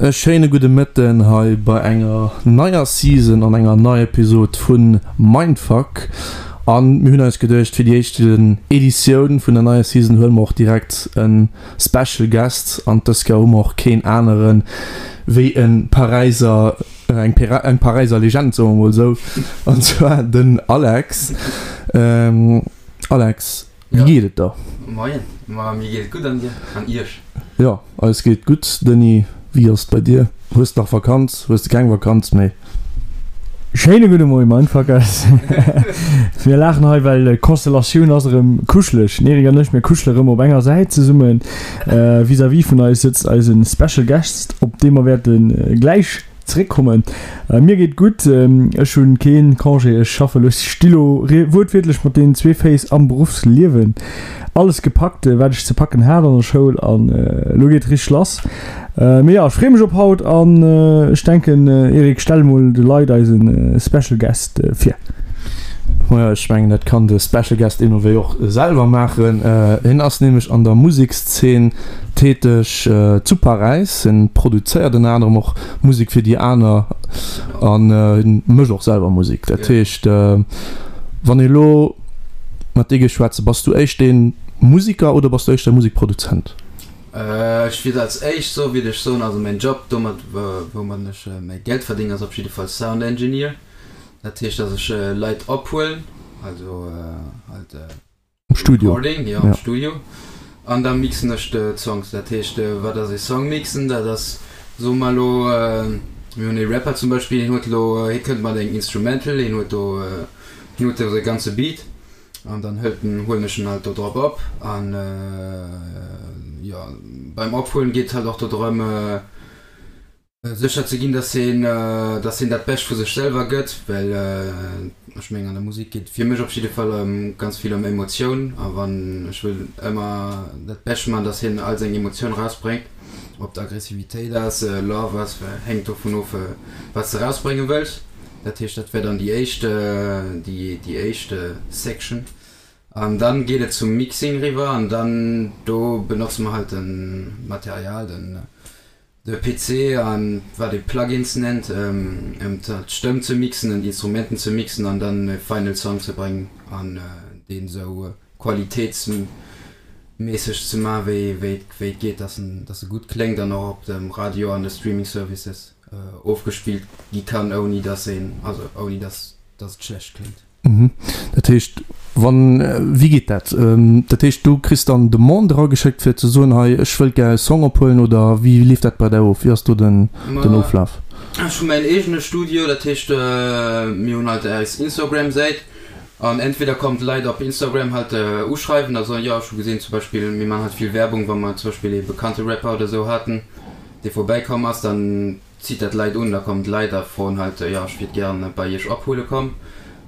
E schéine gudde Mëtten hei bei enger neier Season an enger neier Episode vu Mindfuck. An mir hunn eis geduecht, fir déi éischt Editioun vun der neier Season huele mer och direkt e Special Guest. An dës Kéier hu mer och keen anere wéi e Paräiser, eng Paräiser Legend, soe mer mol esou, an zwar den Alex. Alex, Wéi geet et der? Moien, ma mir geet et gutt an dir? An iech? Jo, eis geet gutt. Denis, wéi ass et bei dir? Hues de nach Vakanz? Hues de keng Vakanz méi? Schéine gudde Moie Mindfuckers. Mir laachen hei well d'Konstellatioun ass erëm kuscheleg. Den Eric an ech, mir kuschele rëm op enger Säit zesummen. Vis-à-vis vun eis sëtzt eise Special Guest, op dee mer wäerte gläich Zeréckkommen. Mir geet gutt, ech hunn keen Congé, ech schaffe lo, ech sti lo wuertwiertlech mat deenen zwee Féiss am Beruffsliewen. Alles gepackt wat ech ze packen hat an der Schoul an elo geet et richteg lass. Mee jo, ech freeë mech op haut an ech denken Eric, stell mol de Leit eise Special Guest vir. Majo, ech mengen dat kann de Special Guest deemno wéi och selwer maachen. Hien ass nämlech an der Musekszeen täteg zu Paräis. Hien produzéiert ënner anerem och Musek fir déi aner an hien mécht och selwer Musek. Dat heescht, wann ee lo mat dir géif schwätzen, bass du éischt dee Museker oder bass du éischter Musekproduzent? Ech wier als éischt soe wier ech soen, also mäin Job domat woumat ech mäi Geld verdéngen ass op jidde Fall Sound Engineer. Dat heescht, dass ech Leit ophuelen, also halt Am Studio. Recording, jo, am Studio. An da mixen ech d'Songs. Dat heescht, wat ass ee Song mixen? Dat ass, soe mer elo, mir hunn ee Rapper zum Beispill, hien huet elo, hie kënnt mat engem Instrumental, hien huet do, hien huet do säi ganze Beat an dann hëlt en, huelen ech en halt do drop op. An jo, beim Ophuelen geet et halt och do drëm, Sécher ze ginn, dass een, dass een dat Bescht vu sech selwer gëtt, well ech mengen an der Musek geet et fir mech op jidde Fall ëm ganz vill ëm Emotioun a wann ech wëll ëmmer dat Bescht man, dass hien all seng Emotioun rausbréngt, ob et Aggressivitéit ass, Love ass, hänkt dovun of wat s de rausbrénge wëlls. Dat heescht dat wär dann déi éischt, déi déi éischt Section an dann geet et zum Mixing riwwer an dann do benotze mer halt den Material, den De PC an wat ee Plugins nennt, ëm d'Stëmm ze mixen, ëm d'Instrumenten ze mixen an dann e final Song ze bréngen an deen esou qualitéitsméisseg ze man wéi wéi et geet, dass en dass e gutt kléngt an och op dem Radio an de Streaming Services ofgespillt gi kann ouni dass een also ouni dass dass et schlecht kléngt. Dat heescht, wann, wéi geet dat? Dat heescht, du kriss dann Demande erageschéckt fir ze soen, hei ech wëllt gär e Song ophuelen oder wéi leeft dat bei där of? Wéi ass do den Oflaf? Ech hu mäin eegene Studio, dat heescht mir hunn halt eis Instagram-Säit an entweder kommen d'Leit op Instagram halt uschreiwen a soen, jo ech hu gesinn zum Beispill, mir man halt vill Werbung, wa mer zum Beispill ee bekannte Rapper oder esou haten, dee vorbäikomm ass, dann zitt dat Leit un, da kommen d'Leit a froen halt, jo ech wiert gären bei iech ophuele komm.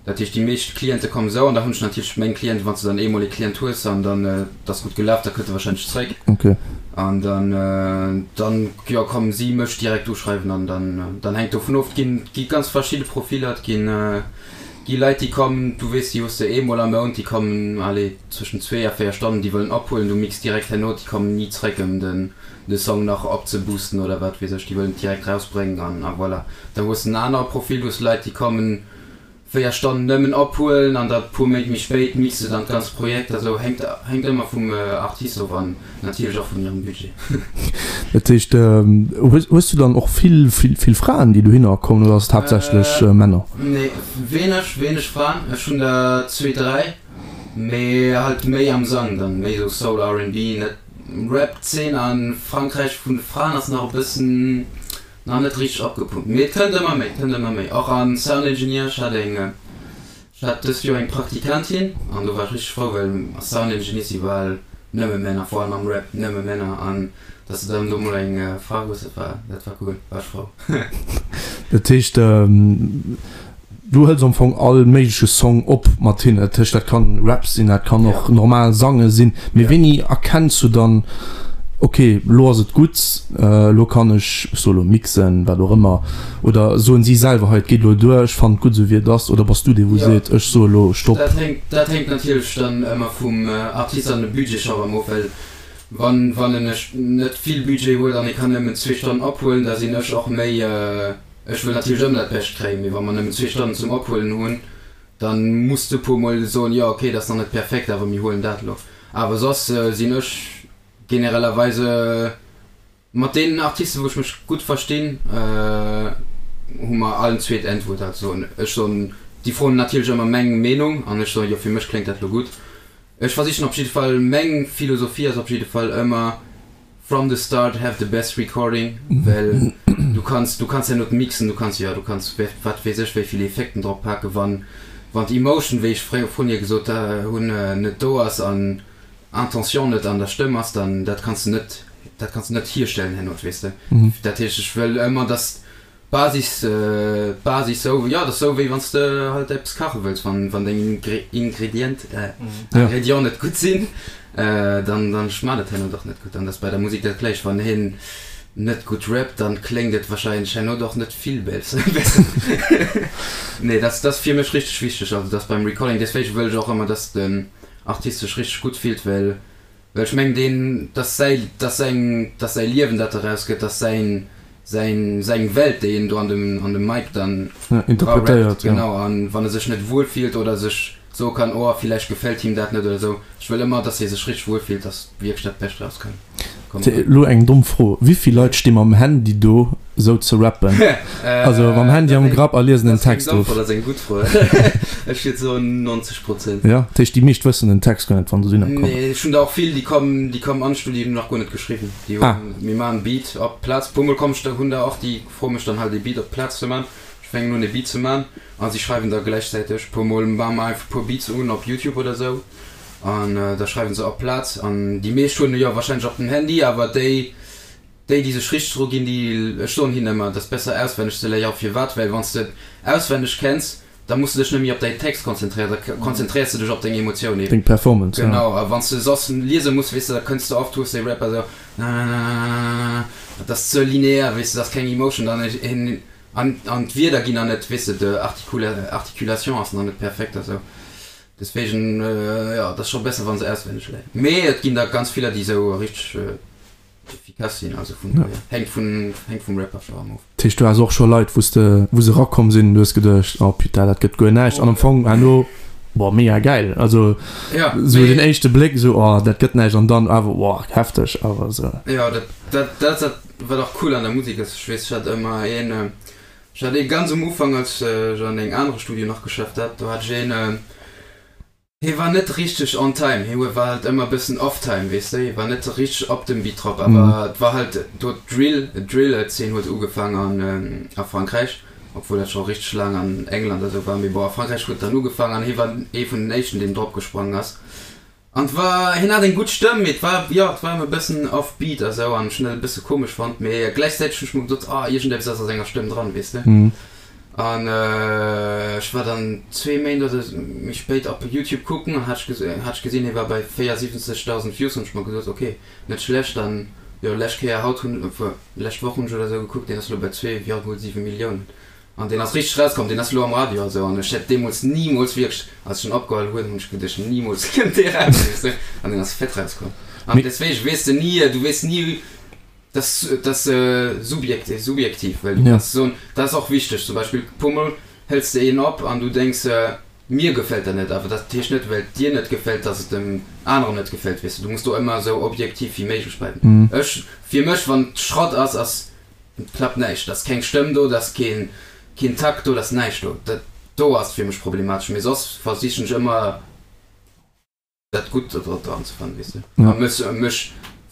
Dat heescht déi meescht Cliente kommen esou an da hunn ech natierlech meng Clienten, wann s de dann eemol ee Client hues an dann et ass gutt gelaf, da kënnt e warscheinlech zréck an dann dann jo kommen si mech direkt uschreiwen an dann dann hänkt dovun of. Et ginn gi ganz verschidde Profiller, et ginn gi Leit déi kommen, du weess déi hues de eemol am Mount, déi kommen allez zwëschen zwee a véier Stonnen, déi wëllen ophuelen, du mix direkt herno, déi kommen ni zréck ëm den de Song nach opzeboosten oder wat weess ech, déi wëllen et direkt rausbréngen an a voilà. Da hues de en anere Profil, du hues Leit déi kommen 4 Stonnen nëmmen ophuelen an da puer Méint méi spéit mixe se dann d'ganzt Projekt. Also hänkt hänkt ëmmer vum Artist of an natierlech och vun hirem Budget. Dat heescht, hues hues du dann och vill vill vill Fraen déi dohinner kommen oder ass et haaptsächlech Männer? Nee, wéineg wéineg Fraen. Ech hunn der zwee, dräi, mee halt méi am Sang dann, méi esou Soul, R&B, net Rap Zeen an Frankräich vun de Fraen ass nach e bëssen nach net richteg opgepumpt, mee et kënnt ëmmer méi, kënnt ëmmer méi. Och an Sound Engineer, ech hat eng, ech hat dëst Joer eng Praktikantin an do war ech richteg frou, well a Sound Engineer si bal nëmme Männer, vor allem am Rap nëmme Männer an dass de dann do mol eng Fra hues, dat war, dat war cool, war ech frou. Dat heescht Du hëls am Fong all méigleche Song op mat hinnen, dat heescht dat kann Rap sinn, dat kann och normal Sange sinn, mee wéini erkenns du dann. Ok, elo ass et gutt, elo kann ech, ech soe elo mixen, wat och ëmmer, oder soen si selwer, hei et geet elo duer, ech fannen et gutt esou wéi et ass, oder bass du dee wou seet, ech soe elo Stopp? Dat hänkt, dat hänkt natierlech dann ëmmer vum Artist an dem Budget scho erëm of, well wann, wann en net vill Budget huet an e kann nëmmen zwee Stonnen ophuelen, da sinn ech och méi, ech wëll natierlech ëmmer dat Bescht kréien, mee wa mer nëmmen zwee Stonnen zum Ophuelen hunn, dann muss de puer mol soen, jo ok, dat ass nach net perfekt, awer mir huelen dat elo. Awer soss sinn ech generellerweise mat deenen Artisten, wou ech mech gutt verstinn, hu mer allen zwee d'Äntwuert. Also ech soen, déi froen natierlech ëmmer meng Meenung an ech soen, jo fir mech kléngt dat elo gutt. Ech versichen op jidde Fall, meng Philosophie ass op jidde Fall ëmmer from the start have the best recording, well du kanns, du kanns herno mixen, du kanns, jo du kanns wat weess ech wéi vill Effekten drop paken, wann wann d'Emotion, wéi ech fréier vrun hier gesot hunn, net do ass an Intention net an der Stëmm ass, dann dat kanns de net, dat kanns de net hierstellen herno, weess de. Dat heescht, ech wëll ëmmer, dass d'Basis, d'Basis sou, jo, dat ass sou wéi wann s de halt eppes kache wëlls, wann, wann deng Ingredient, Ingrédients net gutt sinn, dann, dann schmaacht et herno och net gutt. An dat ass bei der Musek dat gläicht, wann hien net gutt rappt, dann kléngt et wahrscheinlech herno och net vill besser. Nee, dat, dat ass fir mech richteg wichteg, also dass beim Recording, deswéige wëll ech och ëmmer, dass den Artist sech richteg gutt fillt, well well ech mengen deen, dass säi, dass säin, dass säi Liewen dat eraus gëtt, dass säin, säin, seng Welt déi en do an dem, an dem Mic dann interpretéiert, genau, an wann e sech net wuel fillt oder sech soe kann, oh villäicht gefält him dat net oder esou, ech wëll ëmmer, dass hie sech richteg wuel fillt, dass wierklech dat Bescht eraus kann kommen. Elo eng domm Fro, Wéivill Leit sti mam Handy do sou ze rappen? Also mam Handy am Grapp a liesen den Text of? Dat ass eng gutt Fro. Ech wierd soen 90 Prozent. Jo, dat heescht déi meescht wëssen den Text guer net wann se dohinner kommen? Nee, ech hunn der och vill déi kommen, déi kommen an d'Studio, déi hunn nach guer net geschriwwen. Déi hunn, mir maachen Beat op d'Plaz. Puer mol komm ech, hunn der och déi froe mech dann halt ee Beat op d'Plaz ze man. Ech fänken un ee Beat ze man a si schreiwen da gläichzäiteg. Puer mol maache mer einfach puer Beats un op Youtube oder sou an da schreiwen se op d'Plaz. An déi meescht hunn jo warscheinlech och den Handy, awer déi Déi, déi sech richteg dru ginn, déi, ech soen hinnen ëmmer, et ass besser auswenneg ze léieren. Firwat? Well wann s de et auswenneg kenns, da muss de dech net méi op däin Text konzentréieren, da konzentréiers de dech op deng Emotioun eben. Deng Performance, ja. Genau, a wann s de soss liese muss, weess de, da kënns de oft, hues de e Rapper esou, nananananana, dat ass ze linear, weess de, dat ass keng Emotion dann, an, an d'Wierder ginn nach net, weess de, d'Articulation ass nach net perfekt a sou. Deswegen, jo, et ass scho besser, wa se auswenneg léieren. Mee et ginn der ganz viller, déi esou richteg. Efficace sinn, also vun dohier hänkt vun hänkt vum Rapper scho erëm of. Dat heescht du has och scho Leit wou s de wou se erakomm sinn an du hues geduecht oh putain dat gëtt guer näischt an am Fong herno boah mega gäil, also Ja, sou den éischte Bléck sou oh dat gëtt näischt an dann awer boah hefteg awer sou. Jo dat dat dat ass dat wat och cool an der Musek ass, ech weess ech hat ëmmer een ech hat ee ganz um Ufank als ech an engem anere Studio nach geschafft hat, do hat ech een Hie war net richteg on time, hie war halt ëmmer bëssen off time, weess de, hie war net richteg op dem Beat drop, awer et war halt do d'Drill, d'Drill-Zeen huet ugefaang an a Frankräich, obwuel dat scho richteg laang an England a sou war, mee bon a Frankräich huet et dann ugefaang an hie war ee vun den éischten, deen drop gesprongen ass an et war, hien hat eng gutt Stëmm, mee et war, jo, et war ëmmer e bëssen off beat a sou an ech hunn dat e bësse komesch fonnt, mee gläichzäiteg hunn ech mer gesot, ah iergendeppes ass a senger Stëmm dran, weess de. An ech war dann zwee Méint oder méi spéit op Youtube kucken an hat ech gesinn, hie war bei 74.000 Views. Hunn ech mer gesot, ok, net schlecht. An jo, lescht Kéier haut hunn, lescht Woch hunn ech oder esou gekuckt, deen ass elo bei 2,7 Milliounen. An deen ass richteg rauskomm, deen ass elo am Radio a sou. An ech hätt deemools nimools wierklech, als ech en opgeholl hunn, hunn ech geduecht, nimools kënnt dee raus, weess de. An deen ass fett rauskomm. An deswegen weess de ni, du weess ni, Dat ass subjektiv, well du kanns soen, dat ass och wichteg, zum Beispill puer mol hëls de een op an du denks, mir gefält dat net, awer dat heescht net, well et dir net gefält, datt et dem aneren net gefält, weess de. Du muss do ëmmer esou objektiv wéi méiglech bleiwen. Ech, fir mech, wann et Schrott ass, ass, klappt näischt, et ass keng Stëmm do, et ass keen, keen Takt do, et ass näischt do. Dat do ass fir mech problematesch, mee soss versichen ech ëmmer, dat Gutt do dran ze fannen, weess de, a mech, mech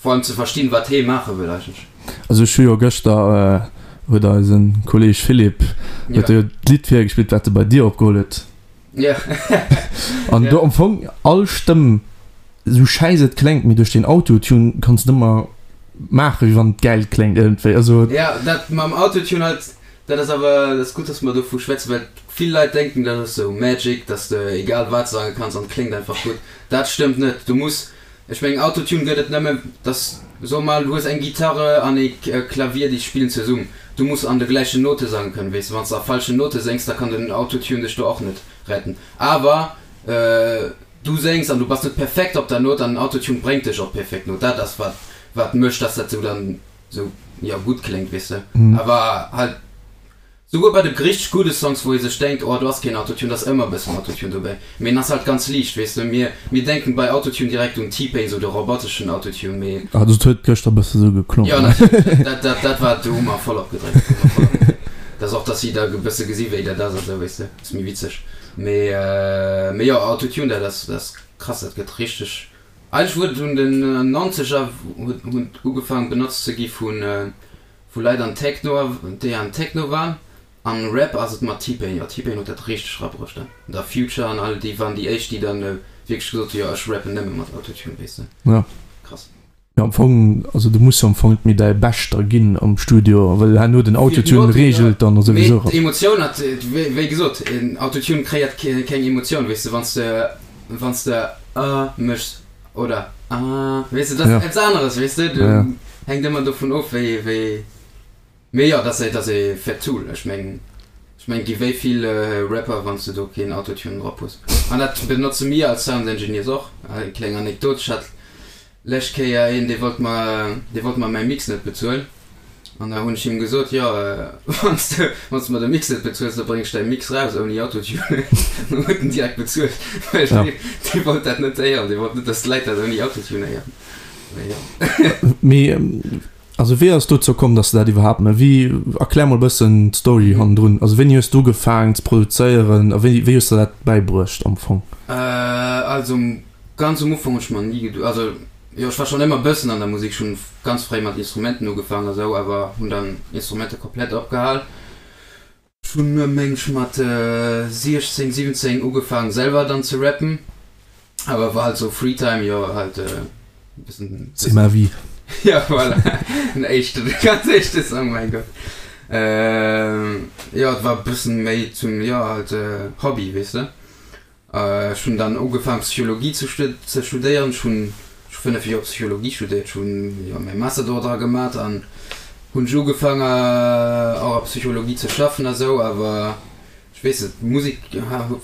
vor allem ze verstinn, wat hee maache wëll eigentlech. Also ech hu jo gëschter, huet eise Kolleg Philippe, huet jo d'Lidd virgespillt, wat e bei dir opgeholl huet. Jo. An do am Fong all Stëmm, esou schäiss et kléngt, mee duerch den Autotune kanns de ëmmer maachen, wéi wann et gäil kléngt iergendwéi. Also. Jo, dat mam Autotune halt, dat ass awer, dat ass gutt, dass mer dovu schwätzen, well Vill Leit denken dat ass sou Magic, dass de egal wat sange kanns an et kléngt einfach gutt. Dat stëmmt net. Du muss, ech mengen Autotune gëtt et nëmme dass. So mol, du hues eng Gitarre an ee Klavier, déi spillen zesumm. Du muss an de gläichen Note sange kënnen, weess de. Wann s de a falschen Note séngs, da kann den Autotune dech do och net retten. Awer du séngs an du bass net perfekt op der Note an den Autotune bréngt dech op d'perfekt Note. Dat ass wat wat mécht, dass dat sou dann sou, jo, gutt kléngt, weess de. Awer halt. Souguer bei de richteg gudde Songs wou ee sech denkt oh do ass keen Autotune, da ass ëmmer e bëssen Autotune dobäi, mee en ass halt ganz liicht, weess de. Mir mir denken bei Autotune direkt un T-Pain, sou de roboteschen Autotune, mee. Also et huet gëschter bësse sou geklongen. Jo natierlech, dat dat dat war, do hu mer voll opgedréckt, do hu mer voll opgedréckt. Dat ass och dass si da e bësse gesi wéi dat ass a sou, weess de, ass méi witzeg. Mee mee jo Autotune dat ass dat ass krass, dat gëtt richteg, eigentlech huet et un den Nonzeger huet huet ugefaangen benotzt ze gi vu Wou Leit an Techno, déi an Techno waren, an Rap ass et mat T-Pain, jo T-Pain huet dat richteg rabruecht dann, da Future an all déi waren déi éischt déi dann wierklech gesot hu jo ech rappen nëmme mat Autotune weess de. Ja. Krass. Jo am Fong, also du muss jo am Fong net méi däi Beschter ginn am Studio, well herno den Autotune reegelt dann souwisou. Mee d'Emotioun hat, wéi gesot, Autotune kreéiert keng Emotioun weess de, wann s de, wann s de ah méchs. Oder ah, weess de, dat ass eppes aneres, weess de, du hänkt ëmmer dovun of, wéi, wéi, mee jo, dat ass e fett Tool, ech meng, ech meng, gi wéi vill Rapper, wann s de do keen Autotune drop hues, an dat benotze mir als Sound Engineers och. Eng kleng Anekdot, ech hat lescht Kéier een, dee wollt mer, dee wollt mer mäi Mix net bezuelen. An da hunn ech him gesot, jo, wann s de, wann s de mer de Mix net bezuels, da bréng ech däi Mix raus ouni Autotune. Dann huet en direkt bezuelt, well dee, dee wollt dat net héieren, dee wollt net, dass d'Leit dat ouni Autotune héieren. Mee jo. Mee also wéi ass et dozou komm, dass de dat iwwerhaapt méchs? Wéi, erklär mol e bëssen d'Story hannendrun. Also wéini hues du ugefaangen ze produzéieren a wéi, wéi hues de der dat bäibruecht am Fong? Also ganz um Ufank hunn ech mer ni gedu, also Jo, ech war schon ëmmer bëssen an der Musik, ech hunn ganz fréi mat Instrumenten ugefaang a sou, awer hunn dann Instrumenter komplett opgehal. Ech hunn meng ech mat 16, 17 ugefaang selwer dann ze rappen, awer war halt sou Freetime, jo halt e bëssen. C'est ma vie. Jo voilà, den éischten, de ganz éischte Song, mäin Gott. Jo, et war e bëssen méi zum, jo halt Hobby, weess de. Ech hunn dann ugefaang Psychologie ze ze studéieren. Ech hunn ech hu 5 Joer Psychologie studéiert, ech hunn jo mäi Master do dra gemat an hunn ech ugefaang och a Psychologie ze schaffen a sou, awer ech weess net, d'Musek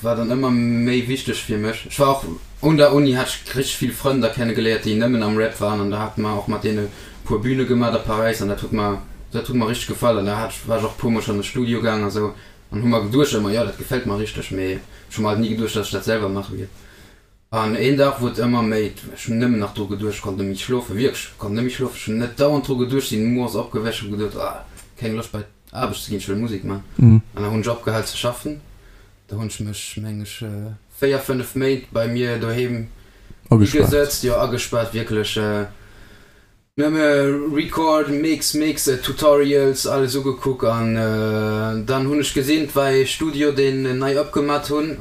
war dann ëmmer méi wichteg fir mech. Ech war och un der Uni hat ech richteg vill Frënn da kenne geléiert déi nëmmen am Rap waren an da hate mer och mat deene puer Büne gemat a Paräis an dat huet mer dat huet mer richteg gefall an da hat ech war ech och puer mol schonn an de Studio gaang a sou. An hu mer geduecht ëmmer, jo dat gefält mer richteg, mee ech hu mer halt ni geduecht, dass ech dat selwer maache wier. An een Dag wor et ëmmer méi, ech hunn nëmmen nach dru geduecht, ech konnt net méi schlofen, wierklech, ech konnt net méi schlofen, ech hunn net dauernd dru geduecht, sinn moies opgewächt, hu geduecht, ah keng Loscht bei d'Aarbecht ze ginn, ech wëll Musek maachen. An da hunn ech opgehal ze schaffen, da hunn ech mech, meng ech, 4, 5 Méint bei mir doheem higesëtzt, jo agespaart, wierklech. Nëmme Record, Mix, Mix, Tutorials, alles ugekuck an dann hunn ech gesinn, 't war ee Studio deen nei opgemat hunn,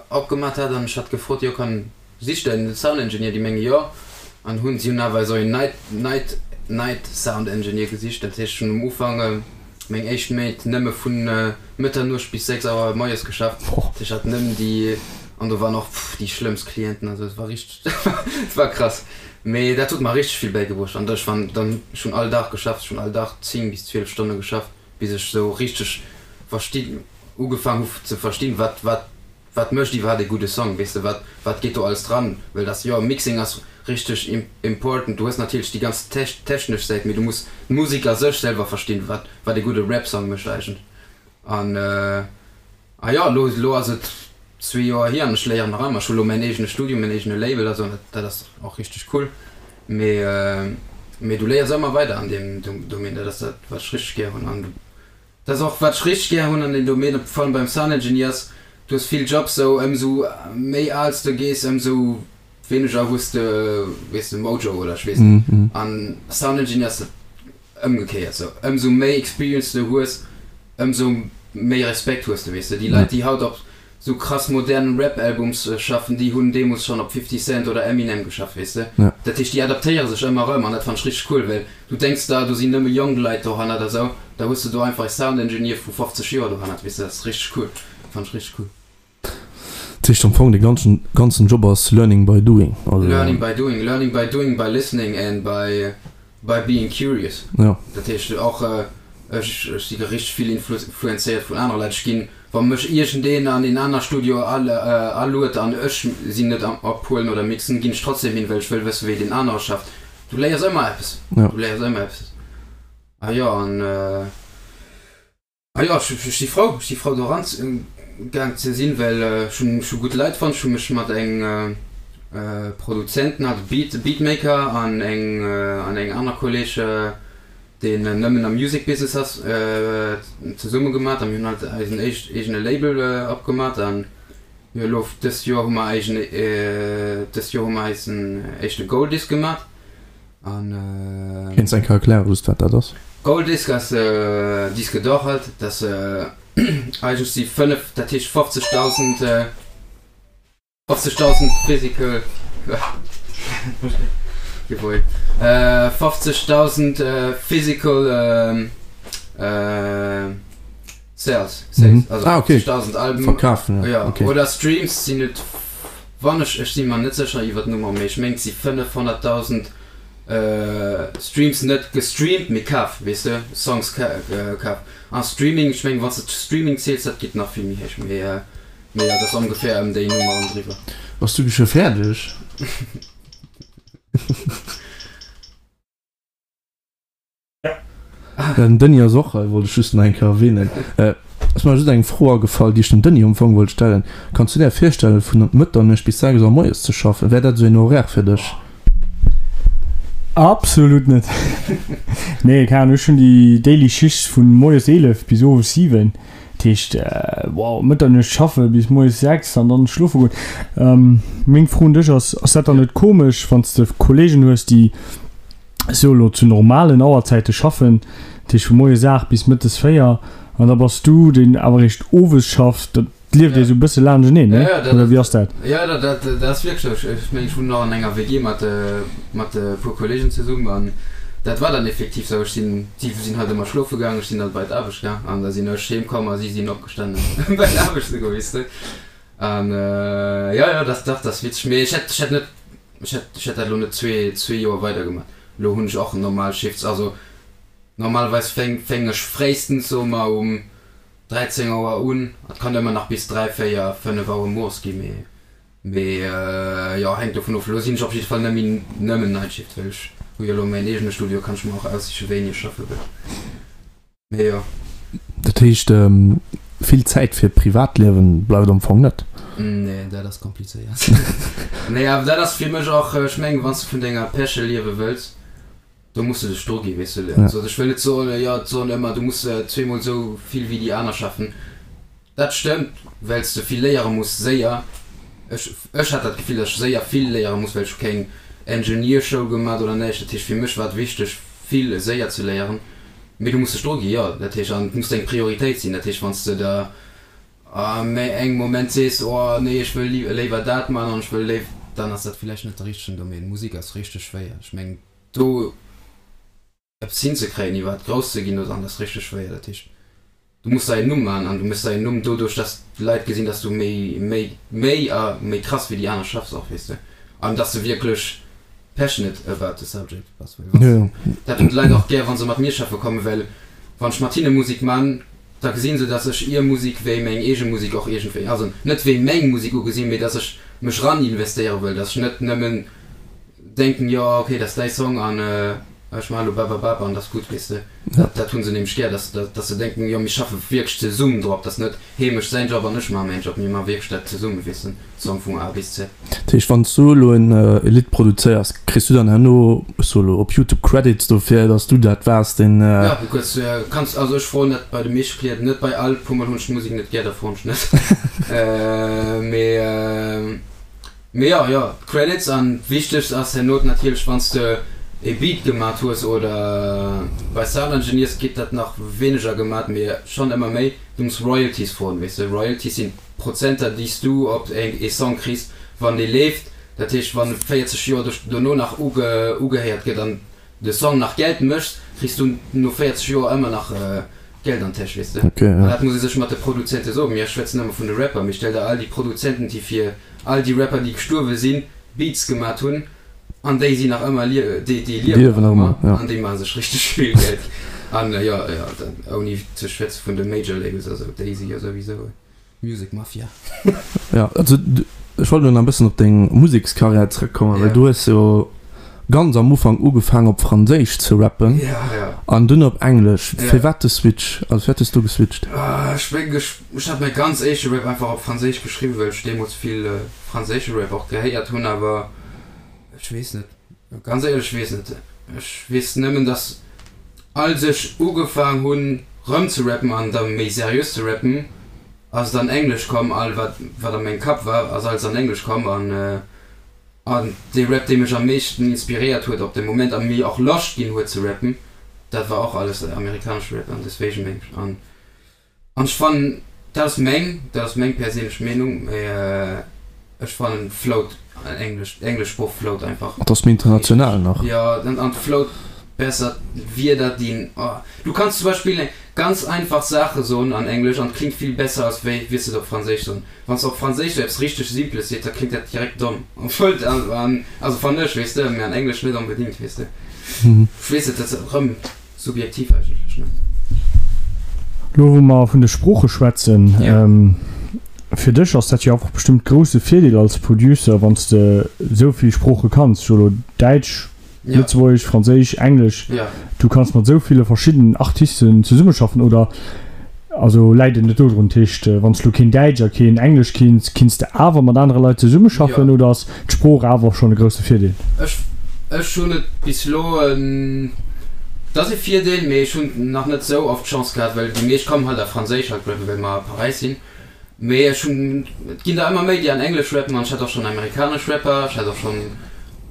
opgemat hat an ech hat gefrot, jo kann, sicht der en Sound Engineer? Déi menge jo an hunn, si hunn awer esou een Night, Night, Night Sound Engineer gesicht. Dat heescht ech hunn um Ufank meng éischt Méint nëmme vun Mëtternuecht bis 6 Auer moies geschafft, ech hat nëmmen déi an do waren och déi schlëmmst Clienten, also et war richteg, et war krass. Mee dat huet mer richteg vill bäigebruecht an ech war dann, ech hunn all Dag geschafft, ech hunn all Dag 10 bis 12 Stonne geschafft, bis ech sou richteg versti ugefaang hu ze verstinn, wat wat wat mécht iwwerhaapt ee gudde Song, weess de, wat wat geet do alles dran, well dass jo Mixing ass richteg important, du hues natierlech déi ganz technesch Säit, mee du muss d'Musek a sech selwer verstinn, wat wat ee gudde Rap-Song mécht eigentlech an. A jo, elo, elo ass et zwee Joer hier an ech léieren nach ëmmer. Ech hu elo mäin eegene Studio, mäin eegene Label a sou an dat, dat ass och richteg cool. Mee, mee du léiers ëmmer weider an deem Domaine. Dat ass dat, wat ech richteg gär hunn. An dat ass och, wat ech richteg gär hunn an deem Domaine, vor allem beim Sound Engineer ass, du hues vill Jobs sou, ëmsou méi al s de gees, ëmsou wéineger hues de, weess de, Mojo oder ech weess net. An Sound Engineer ass dat Ëmgekéiert sou, ëmsou méi Experience de hues, ëmsou méi Respekt hues de, weess de. Déi Leit, déi haut op sou krass modernen Rap-Albums schaffen, déi hunn deemools schonn op 50 Cent oder Eminem geschafft, weess de. Dat heescht, déi adaptéiere sech ëmmer erëm an dat fannen ech richteg cool, well du denks der, do sinn nëmme jonk Leit dohannert a sou, da hues de do einfach e Sound Engineer vu 50 Joer dohannert, weess de. Dat ass richteg cool, fannen ech richteg cool. Dat heescht am Fong de ganzen ganzen Job ass learning by doing. Also. Learning by doing, learning by doing, by listening and by. By being curious. Jo. Dat heescht och, ech ech si richteg vill influenzéiert vun anere Leit. Ech ginn, wa mech iergendeen an een aner Studio aluet an ech sinn net am Ophuelen oder Mixen, ginn ech trotzdem hin, well ech wëll wëssen, wéi deen anere schafft. Du léiers ëmmer eppes. Jo. Du léiers ëmmer eppes. A jo, an. Ah jo, ech si frou, ech si frou do eran gaang ze sinn, well ech hunn ech hu gutt Leit fonnt. Ech hu mech mat eng Produzenten, also Beat Beatmaker an eng an eng aner Kolleg, deen nëmmen am Music Business ass, zesumme gemat a mir hunn halt eisen éischt eegene Label opgemat an jo elo dëst Joer hu mer eisen dëst Joer hu mer eisen éischte Gold Disc gemat. An. Kéints eng Kéier erklären just wat dat ass? Gold Disc ass Disque d'or halt, dat ass eigentlech si 5, dat heescht 50.000, 50.000 physical, jawohl, 50.000 physical Sales, Sales, also 50.000 Alben verkafen, ja, oder Streams sinn et. Wann ech, ech si mer net sécher iwwer d'Nummer, mee ech mengt si 500.000 Streams, net gestreamt, mee kaf, weess de, Songs kaf. A Streaming, ech mengen, wann s de Streaming ziels, dat geet nach vill méi héich, mee mee jo, dat ass ongeféier ëm déi Nummer an driwwer. Bass du scho fäerdeg? Den Denis ass och hei, wollt ech just nach eng Kéier erwähnen. Et ass mer just eng Fro agefall, déi ech dem Denis am Fong wollt stellen. Kanns du där virstellen, vun Mëtternuecht bis 6 Auer moies ze schaffen? Wär dat esou een Horaire fir dech? Absolut net. Nee, keng Ahnung, ech hunn déi daily Schicht vun moies 11 bis owes 7. Dat heescht, wow, Mëtternuecht schaffe bis moies 6 an dann schlofe goen. Meng Fro un dech ass, Ass dat dann net komesch, wann s de Kollegen hues, déi sou elo zu normalen Auerzäite schaffen, dat heescht vu moies 8 bis mëttes 4, an da bass du, deen awer eréischt owes schafft, dat lieft ee sou e bësse laanschteneen, ne? Oder wéi ass dat? Jo, dat ass wierklech sou. Ech mengen, ech wunnen och an enger WG mat mat e puer Kolleegen zesummen an dat war dann effektiv sou. Ech sinn, si sinn halt ëmmer schlofe gaang, ech sinn dann bei d'Aarbecht gaang an da sinn ech heem komm a si sinn opgestanen bei d'Aarbecht ze goen, weess de. An jo, jo, dat dach, dat ass witzeg. Mee ech hätt, ech hätt net Ech hätt, ech hätt dat elo net zwee Joer weidergemaach. Elo hunn ech och normal Shifts. Also normalerweis fäng, fäng ech fréistens, soe mer, um 13 Auer un. Et kann ëmmer nach bis 3, 4, 5 Auer mueres ginn, mee, mee jo, hänkt dovun of. Elo sinn ech op jidde Fall net méi nëmmen Night Shift, well ech hu jo elo mäin eegene Studio, kann ech mer och aussiche wéini ech schaffe wëll. Mee jo. Dat heescht, vill Zäit fir Privatliewen bleift am Fong net? Nee, dat ass komplizéiert. Nee, awer dat ass fir mech och, ech mengen, wann s de vun denger Passion liewe wëlls, do muss de dech dru ginn, weess de. Also ech wëll net soen, jo, et soen ëmmer, du muss zweemol esou vill wéi déi aner schaffen. Dat stëmmt, well s de vill léiere muss, séier. Ech, ech hat dat Gefill, datt ech séier vill léiere muss, well ech hu keng Engineer-Schoul gemat oder näischt. Dat heescht, fir mech war et wichteg, vill séier ze léieren. Mee du muss dech dru gi, jo. Dat heescht, an et muss deng Prioritéit sinn. Dat heescht, wann s de der a méi engem Moment sees, oh nee, ech wëll léiwer dat man an ech wëll léiw, dann ass dat villäicht net de richtegen Domaine. Musek ass richteg schwéier. Ech mengen, do. Eppes hinzekréien, iwwerhaapt grouss ze ginn oder an, ass richteg schwéier. Dat heescht, du muss der een Numm maachen an du méchs der een Numm doduerch, dass d'Leit gesinn, dass du méi, méi, méi a méi krass wéi déi aner schaffs och, weess de, an dass de wierklech passionate about the subject bass. Well wann s, dat hunn d'Leit och gär, wa se mat mir schaffe kommen, well wann ech mat hinne Musek man, da gesinn se, dass ech ihr Musek wéi meng eege Musek och iergendwéi, also net wéi meng Musek ugesinn, mee dass ech mech ran investéiere wëll, dass ech net nëmmen denken, jo ok, dat ass däi Song an ech maachen elo bababab an dat ass gutt, weess de. Dat hu se nämlech gär, dass dass se denken, jo mir schaffe wierklech zesummen drop, dat ass net hee mécht säin Job an ech maache mäin Job, mir maache wierklech dat zesummen, weess de, Song vun A bis Z. Dat heescht, wann s du elo en Lidd produzéiers, kriss du dann herno, ech soe elo, op Youtube Credits dofir, dass du dat waars, deen. Jo, du kuerz kanns, also ech froen dat bei de meeschte Clienten net, bei all, puer mol hunn ech d'Musek net gär, da froen ech net, mee. Mee jo, jo, d'Credits an d'wichtegst ass herno natierlech wanns de e Beat gemat hues oder bei Sound Engineers geet dat nach wéineger gemat mee schonn ëmmer méi, du muss Royalties froen, weess de. Royalties sinn d'Prozenter déi s du op ee Song kriss wann dee leeft, dat heescht wann e 40 Joer dono nach ugehéiert gëtt an de Song nach Geld méchs, kriss du no 40 Joer ëmmer nach Geld an d'Täsch, weess de. An dat muss ee sech mat de Produzente soen. Mir schwätzen ëmmer vun de Rapper, mee stell der all déi Produzenten, déi fir all déi Rapper, déi gestuerwe sinn, Beats gemat hunn. An déi sinn nach ëmmer, déi liewen nach ëmmer an déi maache sech richteg vill Geld. An jo, jo, ouni ze schwätze vun de Major Labels, also déi si jo souwisou Music Mafia. Jo, also ech wollt elo nach e bëssen op deng Musekskarriär zrëckkommen, well du hues jo ganz am Ufank ugefaangen op Franséisch ze rappen an dunn op Englesch. Firwat de Switch? Also firwat hues du geswitcht? Ech mengen, ech hat mäi ganz éischte Rap einfach op Franséisch geschriwwen, well ech deemools vill franséische Rap och gehéiert hunn, awer Ech weess net, ganz éierlech, ech weess net. Ech weess nëmmen, dass als ech ugefaang hunn rëm ze rappen an da méi seriös ze rappen, ass et an Englesch komm, all wat wat a mengem Kapp war, ass alles an Englesch komm an an dee Rap dee mech am meeschten inspiréiert huet op de Moment a mir och Loscht ginn huet ze rappen, dat war och alles amerikanesche Rap an deswegen meng ech an An ech fannen, dat ass meng, dat ass meng perséinlech Meenung, mee ech fannen flowt Englesch, d'englesch Sprooch flowt einfach. Et ass méi international nach. Jo, an et flowt besser, d'Wierder dinn, oh, du kanns zum Beispill eng ganz einfach Saache soen an Englesch an et klingt vill besser als wéi wiers de et op Franséisch soen. Wann s de op Franséisch sou eppes richteg Simples seet, da klingt dat direkt domm, obwuel et an, also fannen ech, weess de, mee an Englesch net onbedingt, weess de. Ech weess net, dat ass erëm. Subjektiv eigentlech, ne? Lo wou mer vun de Sprooche schwätzen, fir dech ass dat jo einfach bestëmmt grousse Virdeel als Producer, wann s de esou vill Sprooche kanns, ech soe lo Däitsch, Lëtzebuergesch, Franséisch, Englesch, du kanns mat esou ville verschiddenen Artisten zesummeschaffen, oder also läit et net dodrun? Dat heescht, wann s du lo keen Däitsch a keen Englesch kinns, kinns de awer mat anere Leit zesummeschaffen, oder ass d'Sprooch awer schonn e grousse Virdeel? Ech, ech hunn et bis elo, et ass e Virdeel, mee ech hunn nach net esou oft d'Chance gehat, well déi meescht kommen halt a Franséisch halt rappen, well mer a Paräis sinn. Mee ech hunn, et ginn der ëmmer méi, déi an Englesch rappen an ech hat och schonn amerikanesch Rapper, ech hat och schonn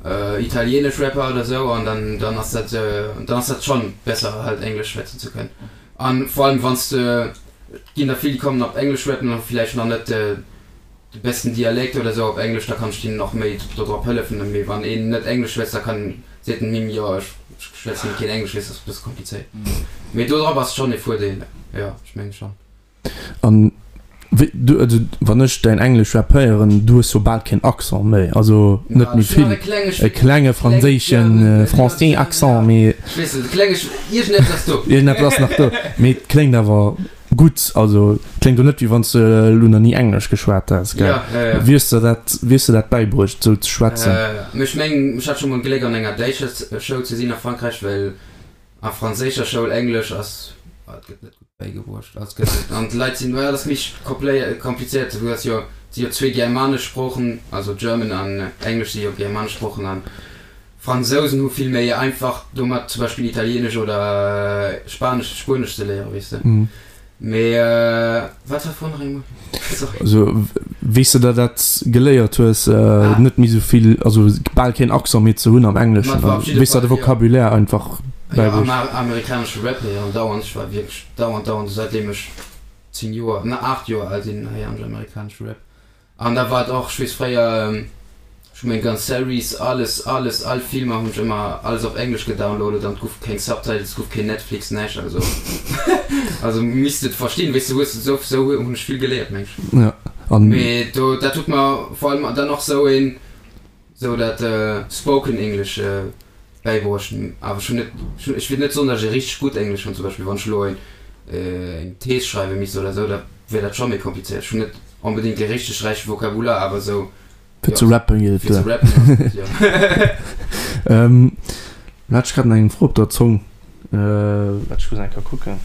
italienesch Rapper oder esou an dann, dann ass dat, dann ass dat schonn besser halt Englesch schwätzen ze kënnen. An vor allem wann s de, et ginn der vill, déi kommen op Englesch rappen an hu villäicht nach net de besten Dialekt oder sou op Englesch, da kann ech deenen och méi dodrop hëllefen. Mee wann een net Englesch schwätzt, da kann, seet en him, jo ech schwätzen keen Englesch, weess, ass e bësse komplizéiert. Mee dodrop ass schonn e Voordeel, jo, ech menge schonn. An wéi du, also wann ech däin Englesch Rap héieren, du hues jo bal keen Accent méi, also net méi vill, e klenge franséischen, français Accent, mee. Ech weess net, e klenge, iergendeppes ass do. Iergendeppes ass nach do, mee et kléngt awer gutt, also et kléngt jo net wéi wann s de elo nach ni Englesch geschwat häss, gell? Wéi hues de dat, wéi hues de dat bäibruecht, esou ze schwätzen? Mee ech mengen, ech hat scho mol d'Gléck an enger däitscher Schoul ze sinn a Frankräich, well A franséischer Schoul Englesch ass, et gëtt net gutt bäigebruecht, also et gëtt, an d'Leit sinn, well dat ass méi komplizéiert, du hues jo, et si jo zwee germanesch Sproochen, also German an Englesch si jo germanesch Sproochen an Fransousen hu vill méi einfach domat zum Beispill Italienesch oder Spanesch, Spuenesch ze léieren, weess de. Mee wat war d'Fro nach eemol? Sorry. Also wéi s de der dat geléiert hues, net méi sou vill, also bal keen Accent méi ze hunn am Engleschen, wéi s der de Vocabulaire einfach bäibruecht? Jo, amerikanesche Rap héieren dauernd. Ech war wierklech dauernd, dauernd, säitdeem ech 10 Joer, na 8 Joer al sinn, héieren ech amerikanesche Rap. An da war et och, ech weess fréier, ech hu meng ganz Series, alles, alles, all Filmer hunn ech ëmmer alles op Englesch gedownloadet an et guff keng Subtitles, et guff keen Netflix, näischt, also also misst et verstinn, weess de, hues de, sou hunn ech vill geléiert meng ech. Ja, an. Mee do, dat huet mer vor allem dann och sou een, sou dat Spoken English bäibruecht. Awer ech hunn net, ech will net soen, datt ech e richteg gutt Englesch hunn. Zum Beispill wann ech elo eng Thees schreiwe misst oder esou, da wier dat scho méi komplizéiert. Ech hunn net onbedéngt e richteg räiche Vokabular, awer esou, Fir ze rappen geet et fir ze duer. rappen ass gutt, jo. Lo hat ech grad nach eng Fro op der Zong. Waart, ech muss eng Kéier kucken.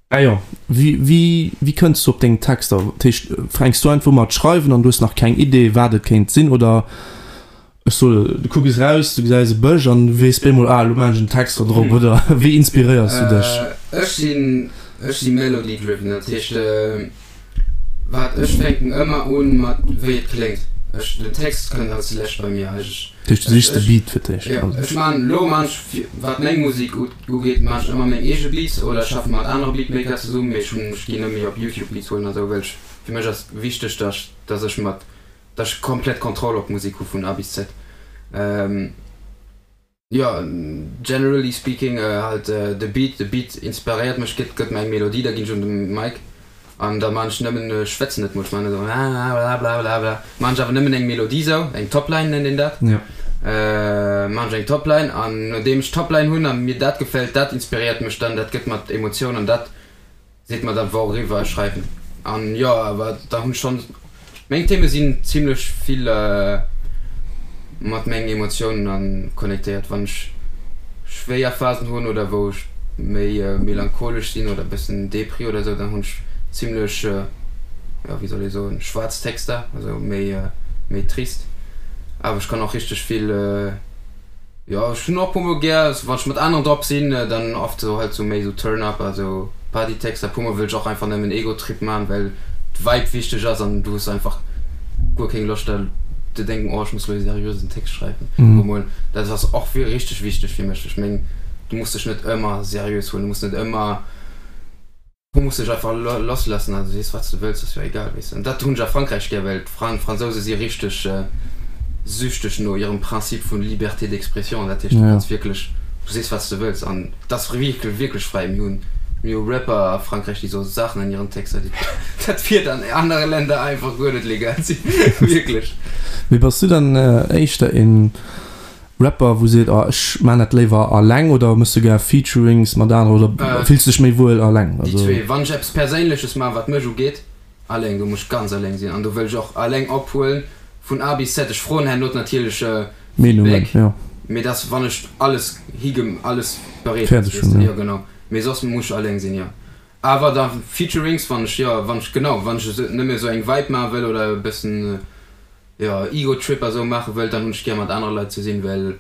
Ah jo, wéi wéi kënns du op deng Texter? Dat heescht, fänks du einfach u mat schreiwen an du hues nach keng Idee wat et kéint sinn oder ech soe du kucks raus, du gesäis e Bësch an du weess bemol, ah elo maachen ech en Text do drop oder wéi inspiréiers du dech? Ech sinn ech si melody driven, dat heescht wat ech fänken ëmmer un mat wéi et kléngt. Ech den Text kënnt als lescht bei mir eigentlech. Dat heescht du sichs de Beat fir d'éischt? Jo, ech maan elo maan ech wat meng Musek ugeet maan ech ëmmer meng eege Beats oder schaffe mat anere Beatmaker zesummen, mee ech hunn ech ginn net méi op Youtube Beats huelen a sou, well ech fir mech ass wichteg dass dass ech mat dass ech komplett Kontroll op d'Musek hu vun A bis Z. Jo, generally speaking halt de Beat, de Beat inspiréiert mech, gëtt gëtt mer eng Melodie, da ginn ech un de Mic. An da maan ech nëmmen, ech schwätzen net mol, ech maan esou blablabla, maan ech awer nëmmen eng Melodie sou, eng Topline nennt een dat, maan ech eng Topline an nodeem ech d'Topline hunn a mir dat gefält, dat inspiréiert mech dann, dat gëtt mer d'Emotioun an dat seet mer dann wouriwwer ech schreiwen. An jo, awer da hunn ech schonn Meng Theme sinn zimlech vill mat mengen Emotiounen an connectéiert. Wann ech schwéier Phasen hunn oder wou ech méi melancholesch sinn oder bëssen Depri oder sou, dann hunn ech zimlech, jo wéi soll ee soen, schwaarz Texter, also méi méi trist. Awer ech kann och richteg vill. Jo ech hunn och puer mol gär, wann ech mat aneren drop sinn, dann oft sou halt sou méi sou Turn up a sou Partytexter. Puer mol wëll ech och einfach nëmmen Egotrip man, well d'Vibe wichteg ass an du hues einfach guer keng Loscht da ze denken, oh ech muss lo ee seriösen Text schreiwen. Puer mol, dat ass och richteg wichteg fir mech. Ech meng du muss dech net ëmmer seriös huelen, du muss net ëmmer. Du muss dech einfach lassloossen an du sees wat s de wëlls, ass jo egal, weess de. An dat hunn ech a Frankräich gär, well d'Fransouse si richteg süchteg no hirem Prinzip vu Liberté d'expression. Dat heescht, du kanns wierklech, du sees wat s de wëlls an et ass wierklech, wierklech fräi. Mir hunn, mir hu Rapper a Frankräich, déi soe Saachen an hiren Texter, déi, dat wier an anere Länder einfach guer net legal sinn, wierklech. Mee bass du dann éischter een Rapper wou seet oh ech maan dat léiwer alleng oder mëss du gär Featurings mat aneren oder fills du dech méi wuel alleng? Déi zwee. Wann ech eppes Perséinleches maan wat mech ugeet, alleng, do muss ech ganz alleng sinn an do wëll ech och alleng ophuelen vun A bis Z. Ech froen herno natierlech Feedback, mee dass wann ech alles hige alles bereet ass, weess de, jo genau, mee soss muss ech alleng sinn, jo. Awer da Featurings wann ech, jo wann ech genau wann ech nëmme esou eng Vibe maache wëll oder e bëssen jo Ego Trip a sou maache wëllt, dann hunn ech gär mat anere Leit ze sinn, well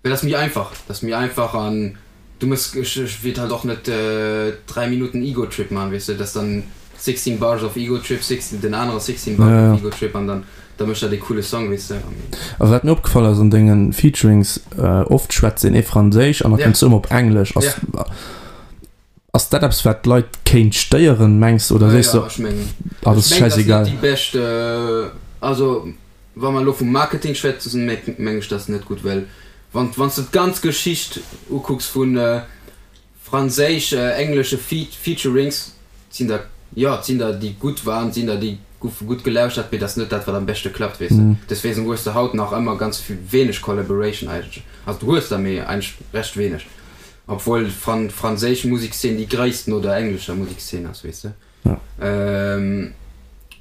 well dat ass méi einfach, dat ass méi einfach an du mëss, ech ech wéilt halt och net 3 Minutten Ego Trip maachen, weess de, dat ass dann 16 Bars of Ego Trip, 16 den anere 16 Bars of Ego Trip an dann da mécht dat ee coole Song, weess de. A wat mir opgefall ass an denge Featurings, oft schwätzt een ee Franséisch an da kënns du ëmmer op Englesch, ass. Ass dat eppes wat d'Leit kéint stéieren mengs oder sees de ah dat ass schäisegal? Déi bescht, also wa mer elo vum Marketing schwätzen, meng ech dat ass net gutt, well wann wann s de d'ganz Geschicht ukucks vu franséisch-englesche Featurings, sinn der jo et sinn der déi gutt waren, et sinn der déi goufe gutt gelauschtert, mee dat ass net dat wat am beschte klappt weess de. Deswegen hues de haut nach ëmmer ganz wéineg Collaboration eigentlech, also du hues der mee eigentlech recht wéineg. Obwuel d'franséisch Musekszeen déi gréisst no der englescher Musekszeen ass, weess de.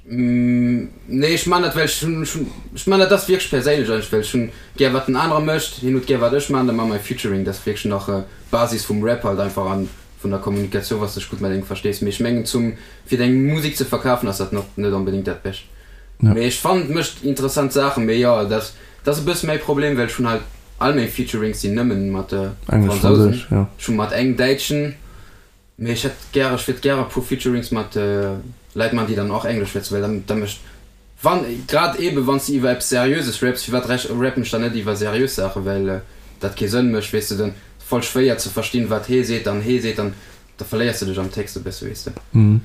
Nee, ech man dat well ech hunn, ech man dat, dat ass wierklech perséinlech eigentlech, well ech hunn gär wat den anere mécht, hien huet gär wat ech man, da man mer e Featuring. Dat ass wierklech nach Basis vum Rap halt einfach an vun der Kommunikatioun, wann s de dech gutt mat engem verstees. Mee ech mengen zum, fir deng Musek ze verkafen ass dat net onbedéngt dat Bescht. Mee ech fannen et mécht interessant Saachen, mee jo, dat. Dat ass e bësse mäi Problem, well ech hunn halt all meng Featurings sinn nëmmen mat Fransousen. Ech hu mat engem Däitschen, mee ech hätt gäre, ech wiert gäre e puer Featurings mat Leit man, déi dann och Englesch schwätzen, well dann da mécht, wann, grad eebe wann s de iwwer eppes Seriöses raps, firwat rappen ech dann net iwwer seriös Saachen, well dat kee Sënn mécht, weess de, dann voll schwéier ze verstinn, wat hee seet an hee seet an Da verléiers de dech am Text e bësse, weess de. Vun,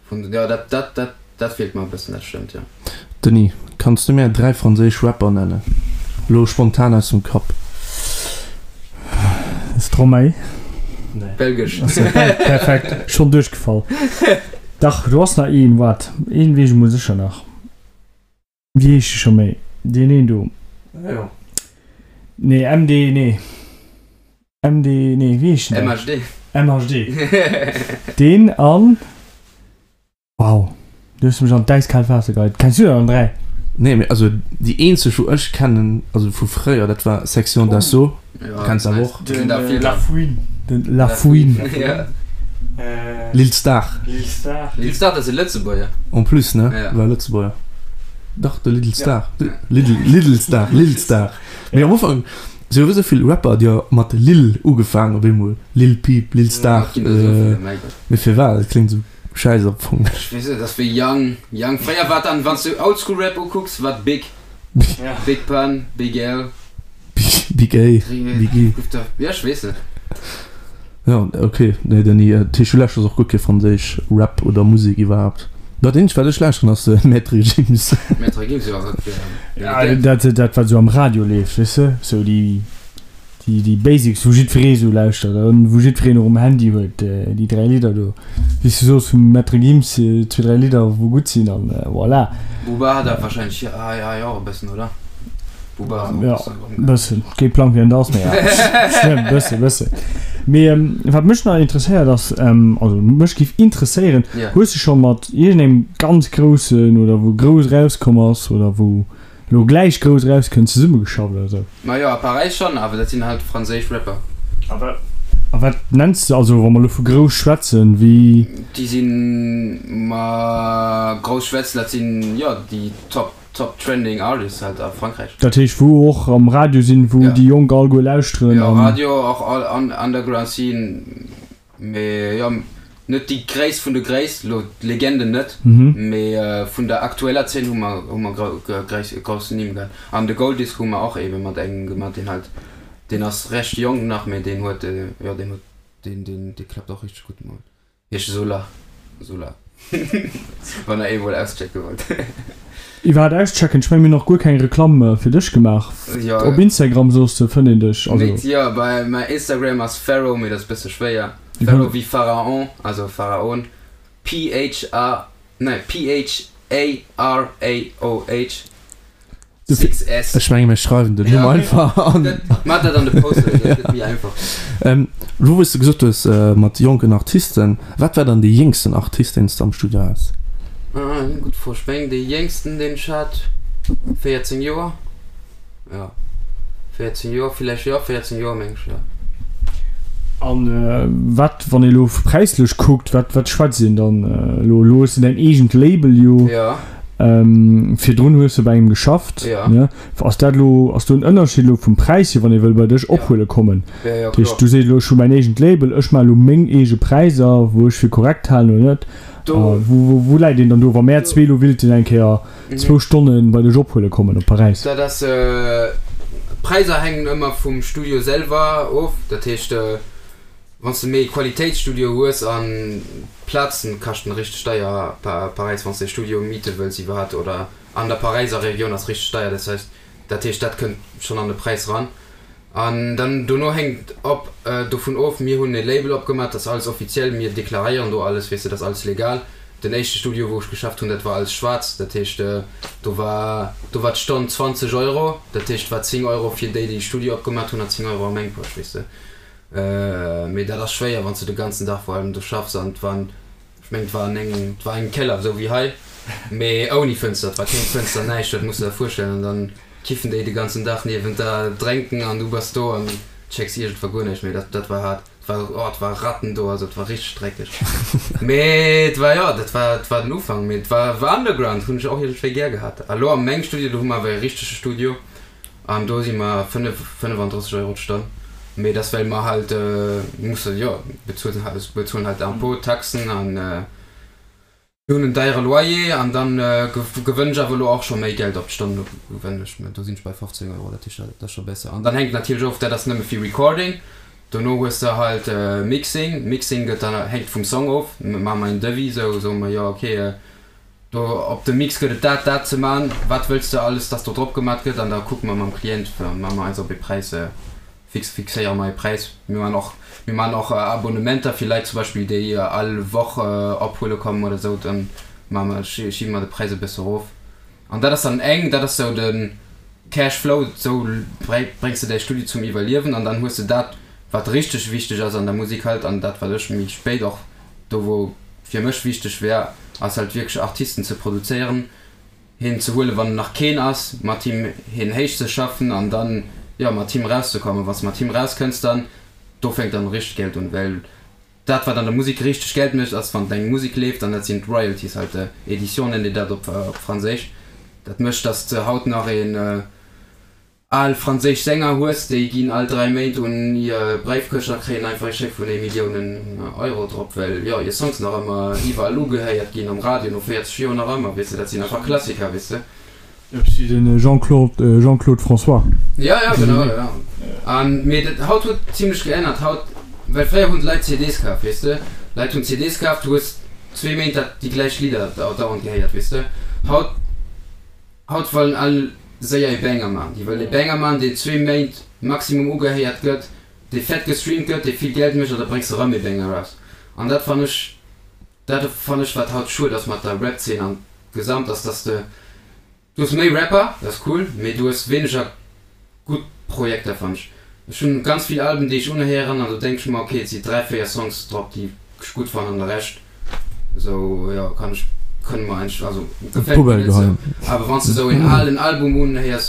jo, dat, dat, dat, dat feelt mer e bëssen, dat stëmmt, jo. Denis, kanns du mär 3 franséisch Rapper nennen? Lo spontan aus dem Kapp. Stromae. Nee. Belgesch. Perfekt, schonn duerchgefall. Dach, do ass nach een, waart, een weess ech emol sécher nach. Wéi heescht e scho méi? Deen een do. Jo. Nee, MD, nee. MD, nee, wéi heescht den? MHD. MHD. Deen an. Wow, du hues mech an d'äiskaalt Waasser geheit. Kenns du der dann 3? Nee, mee also déi eenzeg wou ech kennen, also vu fréier, dat war Section d'Assaut. Ja, Kenns awer och. Den La Fouine. Den La Fouine. Ja. Lil Star. Lil Star. Lil Star, dat ass e Lëtzebuerger. En plus, ne? Ja. War Lëtzebuerger. Dach, de Little Star. Little, Little Star, Lil Star. Mee am Ufank, si hu esou vill Rapper, déi mat Lil ugefaangen op eemol. Lil Peep, Lil Star. Mee firwat? Dat kléngt esou schäiss am Fong. Ech weess net, dat ass wéi Young, Young. Fréier war dann, wann s du Oldschool Rap ukucks, war Big. Big Pun, Big L. Big A, Big E. Ja, ech weess net. Ja, ok. Nee, Denis, dat heescht, du lauschters och guer kee franséisch Rap oder Musek iwwerhaapt? Dat eenzegt, wat ech lauschteren, ass Maître Gims. Maître Gims, jo, dat Ja, dat, dat wat esou am Radio leeft, weess de, sou déi. Déi, déi Basics, wou jiddweree sou lauschtert an wou jiddwereen och um Handy huet, déi 3 Lidder do, wéi s du soos, vum Maître Gims, zwee, dräi Lidder, wou gutt sinn an voilà. Booba hat awer wahrscheinlech hei, hei och e bëssen, oder? Booba ass och e Ja, bëssen erëm. bëssen. Kee Plang, wien dat ass, mee ja, schlëmm, bësse, bësse. Mee wat mech nach interesséiert ass, also mech géif interesséieren, Ja. Hues de scho mat iergendengem ganz groussen oder wou grouss erauskomm ass oder wou Lo gläich grouss erauskënnt, zesummegeschafft oder sou. Majo, a Paräis schonn, awer dat sinn halt franséisch Rapper. A wat nenns de, also wa mer lo vu grouss schwätzen, wéi. Déi sinn, ma grouss schwätzen, dat sinn, jo, déi top, top trending artists halt a Frankräich. Dat heescht wou och am Radio sinn, wou déi Jonk alleguer lauschteren an. Jo, Radio, och all underground scene. Mee jo, net déi gréisst vun de Gréisst, lo d'Legenden net, mee vun der aktueller Zeen hu mer hu mer grouss Nimm gehat. An de Gold Disc hu mer och ebe mat engem gemat, deen halt, deen ass recht jonk nach, mee deen huet, jo deen huet, deen deen dee klappt och richteg gutt mol. Heescht Solar, Solar, wann der ee mol auschecke wollt. Iwwerhaat auschecken, ech mengen mir hunn nach guer keng Reklamm fir dech gemaach. Jo. Op Instagram soos de fënnt een dech, also. Net, jo, bei mäi Instagram ass Pharaoh, mee dat ass bësse schwéier. Pharaoh wéi Pharaon, also Pharaon, P H A, nee P H A R A O H 6 S. Ech menge mir schreiwen den Numm einfach an. Maach dat an de Post, dat gëtt méi einfach. Elo wou s de gesot hues mat jonken Artisten, wat war dann dee jéngsten Artist deen s de am Studio has? Gutt Fro. Ech mengen dee jéngsten deen ech hat, 14 Joer, jo 14 Joer villäicht, jo 14 Joer meng ech, jo. An wat, wann ee elo präislech kuckt, wat wat schwätzt een dann elo? Elo hues de däin eegent Label jo. Jo. Virdrun hues de bei engem geschafft, ne? Ass dat elo, ass do en Ënnerscheed elo vum Präis hier, wann ee wëll bei dech ophuele kommen? Dat heescht, du sees elo, ech hu mäin eegent Label, ech maache elo meng eege Präisser, wou ech fir korrekt halen oder net. Wou, wou läit een dann do, wa mär zwee elo willten eng Kéier zwou Stonne bei dech ophuele kommen op Paräis? Dat ass, d'Präisser hänken ëmmer vum Studio selwer of. Dat heescht, Wann s de méi e Qualitéitsstudio hues an d'Plazen kaschten richteg deier, Paräis, wann s de e Studio miete wëlls iwwerhat oder an der Paräiser Regioun ass richteg deier, dat heisst dat heescht dat kënnt schonn an de Präis ran. An dann dono hänkt op dovun of, mir hunn e Label opgemaach, dat ass alles offiziell, mir deklaréieren do alles, weess de, dat ass alles legal. Den éischte Studio wou ech geschafft hunn, dat war alles schwaarz, dat heescht do war do war d'Stonn 20 Euro, dat heescht war 10 Euro fir déi déi de Studio opgemaach hunn an 10 Euro a meng Posch, weess de. Mee dat ass schwéier, wann s de de ganzen Dag vor allem do schaffs an et waren, ech mengen et war an engem, et war engem Keller, esou wéi hei, mee ouni Fënster, et war keng Fënster, näischt, dat muss de der virstellen. An dann kiffen déi de ganzen Dag niewent der, drénken an du bass do an checks iergendwa guer näischt méi. Dat, dat war haart. Et war, oh, et war Ratten do, also et war richteg dreckeg. Mee et war, jo, dat war, et war den Ufank, mee et war, war Underground, hunn ech och iergendwéi gär gehat. A lo a mengem Studio, do hu mer awer e richtege Studio. An do si mer 35 Euro d'Stonn. Mee dat ass well mer halt musse, jo, bezuelen halt, bezuelen halt Impôt, Taxen an mir hunn en deiere Loyer. An dann gewënn ech awer elo och scho méi Geld op d'Stonn, do gewënn ech, do sinn ech bei 15 Euro, dat heescht dat ass scho besser. An dann hänkt natierlech of, dat ass nëmme fir Recording, dono hues de halt Mixing, Mixing gëtt dann, hänkt vum Song of, maache mer en Devis, sou soe mer, jo okay, Do op dem Mix gëtt et dat, dat ze man, wat wëlls de alles dass do drop gemat gëtt an da kucke mer mam Klient, ma mer eis op ee Präis fix, fixéiere mer ee Präis. Mir man och, mir man och Abonnementer fir Leit zum Beispill déi all Woch ophuele kommen oder sou, dann ma mer, schiebe mer de Präis e bësse erof an dat ass dann eng, dat ass sou de Cash Flow, sou bréngs de däi Studio zum Iwwerliewen an dann hues de dat wat richteg wichteg ass an der Musek halt an dat wat ech méi spéit och do wou fir mech wichteg wär, ass halt wierklech Artisten ze produzéieren, heen ze huelen wann nach keen ass, mat him heen héich ze schaffen an dann, jo, mat him rauszekommen. Wann s de mat him rauskënns, dann, do fänkt dann richteg Geld un, well dat wat an der Musek richteg Geld mécht ass wann deng Musek leeft an dat sinn d'Royalties halt, Edition nennt een dat op Franséisch, dat mécht dass de haut nach een. Al franséisch Sänger hues, déi ginn all 3 Méint un hir Bréifkëscht a kréien einfach ee Scheck vun ee Milliounen Euro drop, well jo hir Songs nach ëmmer iwwerall ugehéiert ginn, am Radio no 40 Joer nach ëmmer, weess de, dat sinn einfach Klassiker, weess de. Eppes wéi de Jean-Claude, Jean-Claude François. Jo, jo, genau, jo. An, mee dat haut huet zimlech geännert, haut, well fréier hunn d'Leit CDs kaf, weess de, Leit hunn CDs kaf, du hues zwee Méint dat déi gläich Lidder dauernd gehéiert, weess de, haut. Haut wëllen all séier ee Banger man. Déi wëllen ee Banger man, deen zwee Méint Maximum ugehéiert gëtt, dee fett gestreamt gëtt, dee vill Geld mécht an da bréngs de rëm ee Banger eraus. An dat fann ech, dat fann ech wat haut schued ass mat der Rap-Zeen an gesamt ass, dass de, du hues méi Rapper, dat ass cool, mee du hues wéineger gutt Projekter fann ech. Ech hunn ganz vill Alben déi ech unhéieren an do denk ech mer, ok et si 3, 4 Songs drop déi ech gutt fannen an de Rescht esou jo kann ech kënne mer eigentlech also gefält mir net esou. Awer wann s de esou een alen Album unhéiers,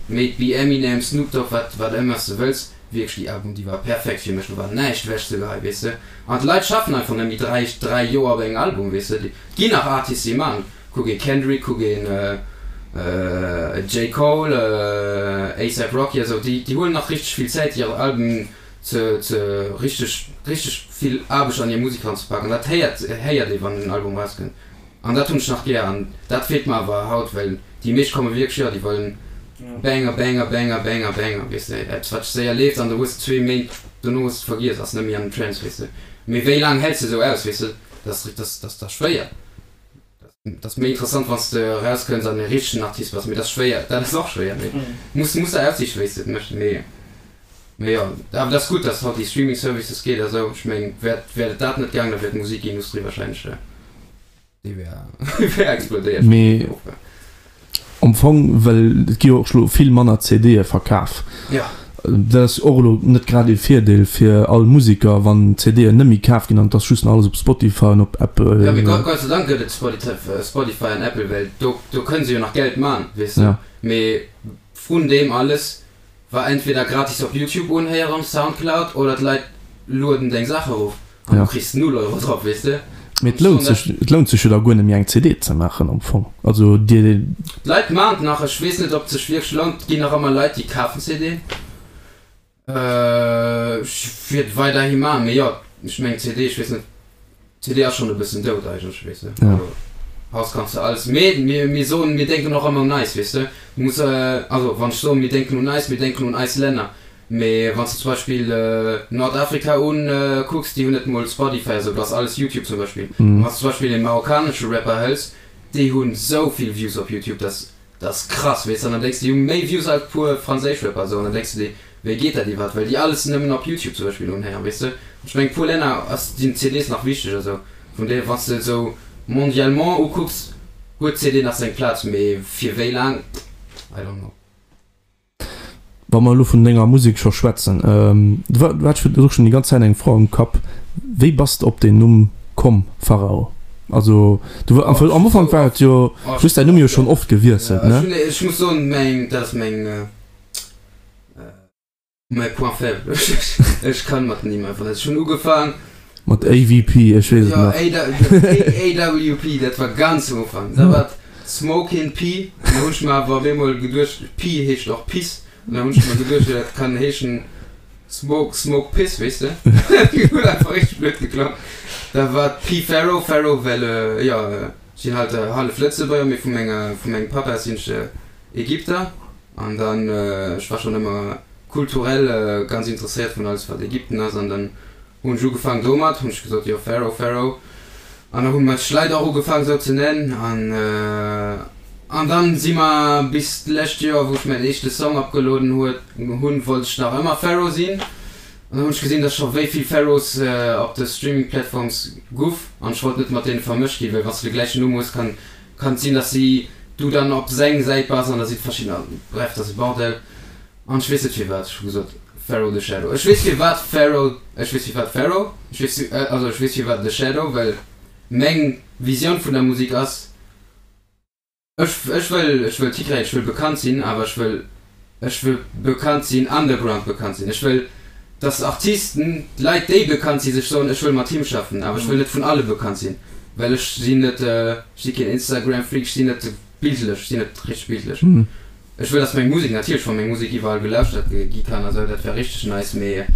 may it be Eminem, Snoop Dogg, wat wat ëmmer s de wëlls, wierklech déi Album déi war perfekt fir mech, do war näischt ewech ze geheien weess de. An d'Leit schaffen einfach net méi 3, 3 Joer op engem Album weess de. Et ginn nach Artists déi man, kuck ee Kendrick, kuck een J. Cole, A$AP Rocky a sou, déi huelen nach richteg vill Zäit hir Alben ze ze richteg richteg vill Aarbecht an hir Musek ranzepaken. Dat héiert héiert ee wann en Album rauskënnt an dat hunn ech nach gär an dat feelt mer awer haut, well déi meescht komme wierklech, jo déi wëllen Banger, Banger, Banger, Banger, Banger, weess de, eppes wat séier leeft an du hues zwee Méint dono hues de et vergiess, ass net méi an den Trends, weess de. Mee wéi laang häls de esou aus, weess de, dat ass dat ass da schwéier. Dat ass méi interessant wann s de erauskënns an e richtegen Artist bass, mee dat ass schwéier, dat ass och schwéier, mee muss muss der aussichen wéi s de et méchs, mee mee jo, awer dat ass gutt, dass haut déi Streaming Services geet a sou, ech meng wär wär et dat net gaang, da wär d'Musikindustrie wahrscheinlech déi wär wär explodéiert. Mee Am Fong, well et gi jo och elo vill manner CDe verkaf. Dat ass och elo net grad ee Virdeel fir all Museker, wann CDen net méi kaf ginn an et ass just nach alles op Spotify an op Apple. Jo, mee Gott sei Dank gëtt et Spotify an Apple, well do do kënne se jo nach Geld man, weess de. Mee vrun deem alles War entweder gratis op Youtube unhéieren, Soundcloud oder d'Leit lueden deng Saach erof an du kriss null Euro drop, weess de. Mee et lount sech, et lount sech jo da guer net méi eng CD ze maachen am Fong. Also dir. D'Leit maan et nach, ech weess net ob et sech wierklech lount, et ginn nach ëmmer Leit déi kafen CDen. Ech wier et weiderhi maan, mee jo, ech mengen CD, ech weess net. CD ass schon e bëssen dout eigentlech, weess de. Ja. Haus kanns de alles, mee mir, mir soen, mir denken och ëmmer un eis, weess de. Du muss, also wann ech soen, mir denken un eis, mir denken un eis Länner. Mee wann s de zum Beispill Nordafrika un kucks, déi hunn net mol Spotify a sou, do ass alles Youtube zum Beispill. An wann s de zum Beispill ee marokkanesche Rapper hëls, déi hunn sou vill Views op Youtube, dass Dat ass krass, weess de, an dann denks de, déi hu méi Views als puer franséisch Rapper esou, an dann denks de dir, wéi geet dat iwwerhaapt, well déi alles nëmmen op Youtube zum Beispill unhéieren, weess de. Ech mengen, puer Länner ass, sinn d'CDs nach wichteg a sou, vun deeër, wann s de esou mondialement ukucks, huet d'CD nach seng Plaz, mee fir wéi laang, I don't know. Wa mer elo vun denger Musek scho schwätzen, du hat ech och schonn déi ganz Zäit eng Fro am Kapp, wéi bass de op deen Numm komm, Pharao? Also du am Ufank war et jo, du hues däin Numm jo schonn oft gewiesselt, ne? Ech muss soen, meng, dat ass meng. Mäi Point faible, ech kann mat Nimm einfach net. Ech hunn ugefaang. Mat AVP, ech weess et nach. Jo, AWP, dat war ganz um Ufank. Da war et Smokin' P, an da hunn ech mer awer op eemol geduecht, P heescht och Piss, an da hunn ech mer geduecht, jo dat kann heeschen Smoke, Smoke Piss, weess de. Huet einfach richteg blöd geklongen. Da war et P Pharaoh, Pharaoh well, jo, ech sinn halt hallef Lëtzebuerger, mee vu menger, vu mengem Papa sinn ech Ägypter. An dann, ech war schonn ëmmer kulturell ganz interesséiert vun alles wat Ägypten ass an dann hunn ech ugefaang domat, hunn ech gesot, jo Pharaoh, Pharaoh. An da hu mech Leit och ugefaang esou ze nennen an an dann si mer bis d'lescht Joer wou ech mäin éischte Song opgelueden huet hunn, wollt ech nach ëmmer Pharaoh sinn. An dann hunn ech gesinn, dass scho wéi vill Pharaohs op de Streaming Platforms guff an ech wollt net mat deene vermëscht ginn, well wann s de de gläichen Numm hues, kann Kann et sinn dass si du dann op seng Säit bass an da si verschiddener, bref dat ass e Bordell an ech weess net firwat ech hu gesot Pharaoh the Shadow ech weess firwat Pharaoh ech weess firwat Pharaoh ech weess also ech weess firwat the Shadow well meng Visioun vun der Musik ass ech ech wëll ech wëll Titre ech wëll bekannt sinn awer ech wëll Ech wëll bekannt sinn, underground bekannt sinn. Ech wëll, dass Artisten, Leit déi bekannt sinn, sech soen, ech wëll mat him schaffen. Awer ech wëll net vun alle bekannt sinn, well ech sinn net, ech si keen Instagram-Freak, ech sinn net bildlech, ech sinn net richteg bildlech. Ech wëll, dass meng Musek, natierlech, wa meng Musek iwwerall gelauschtert gi kann a sou, dat wär richteg nice, mee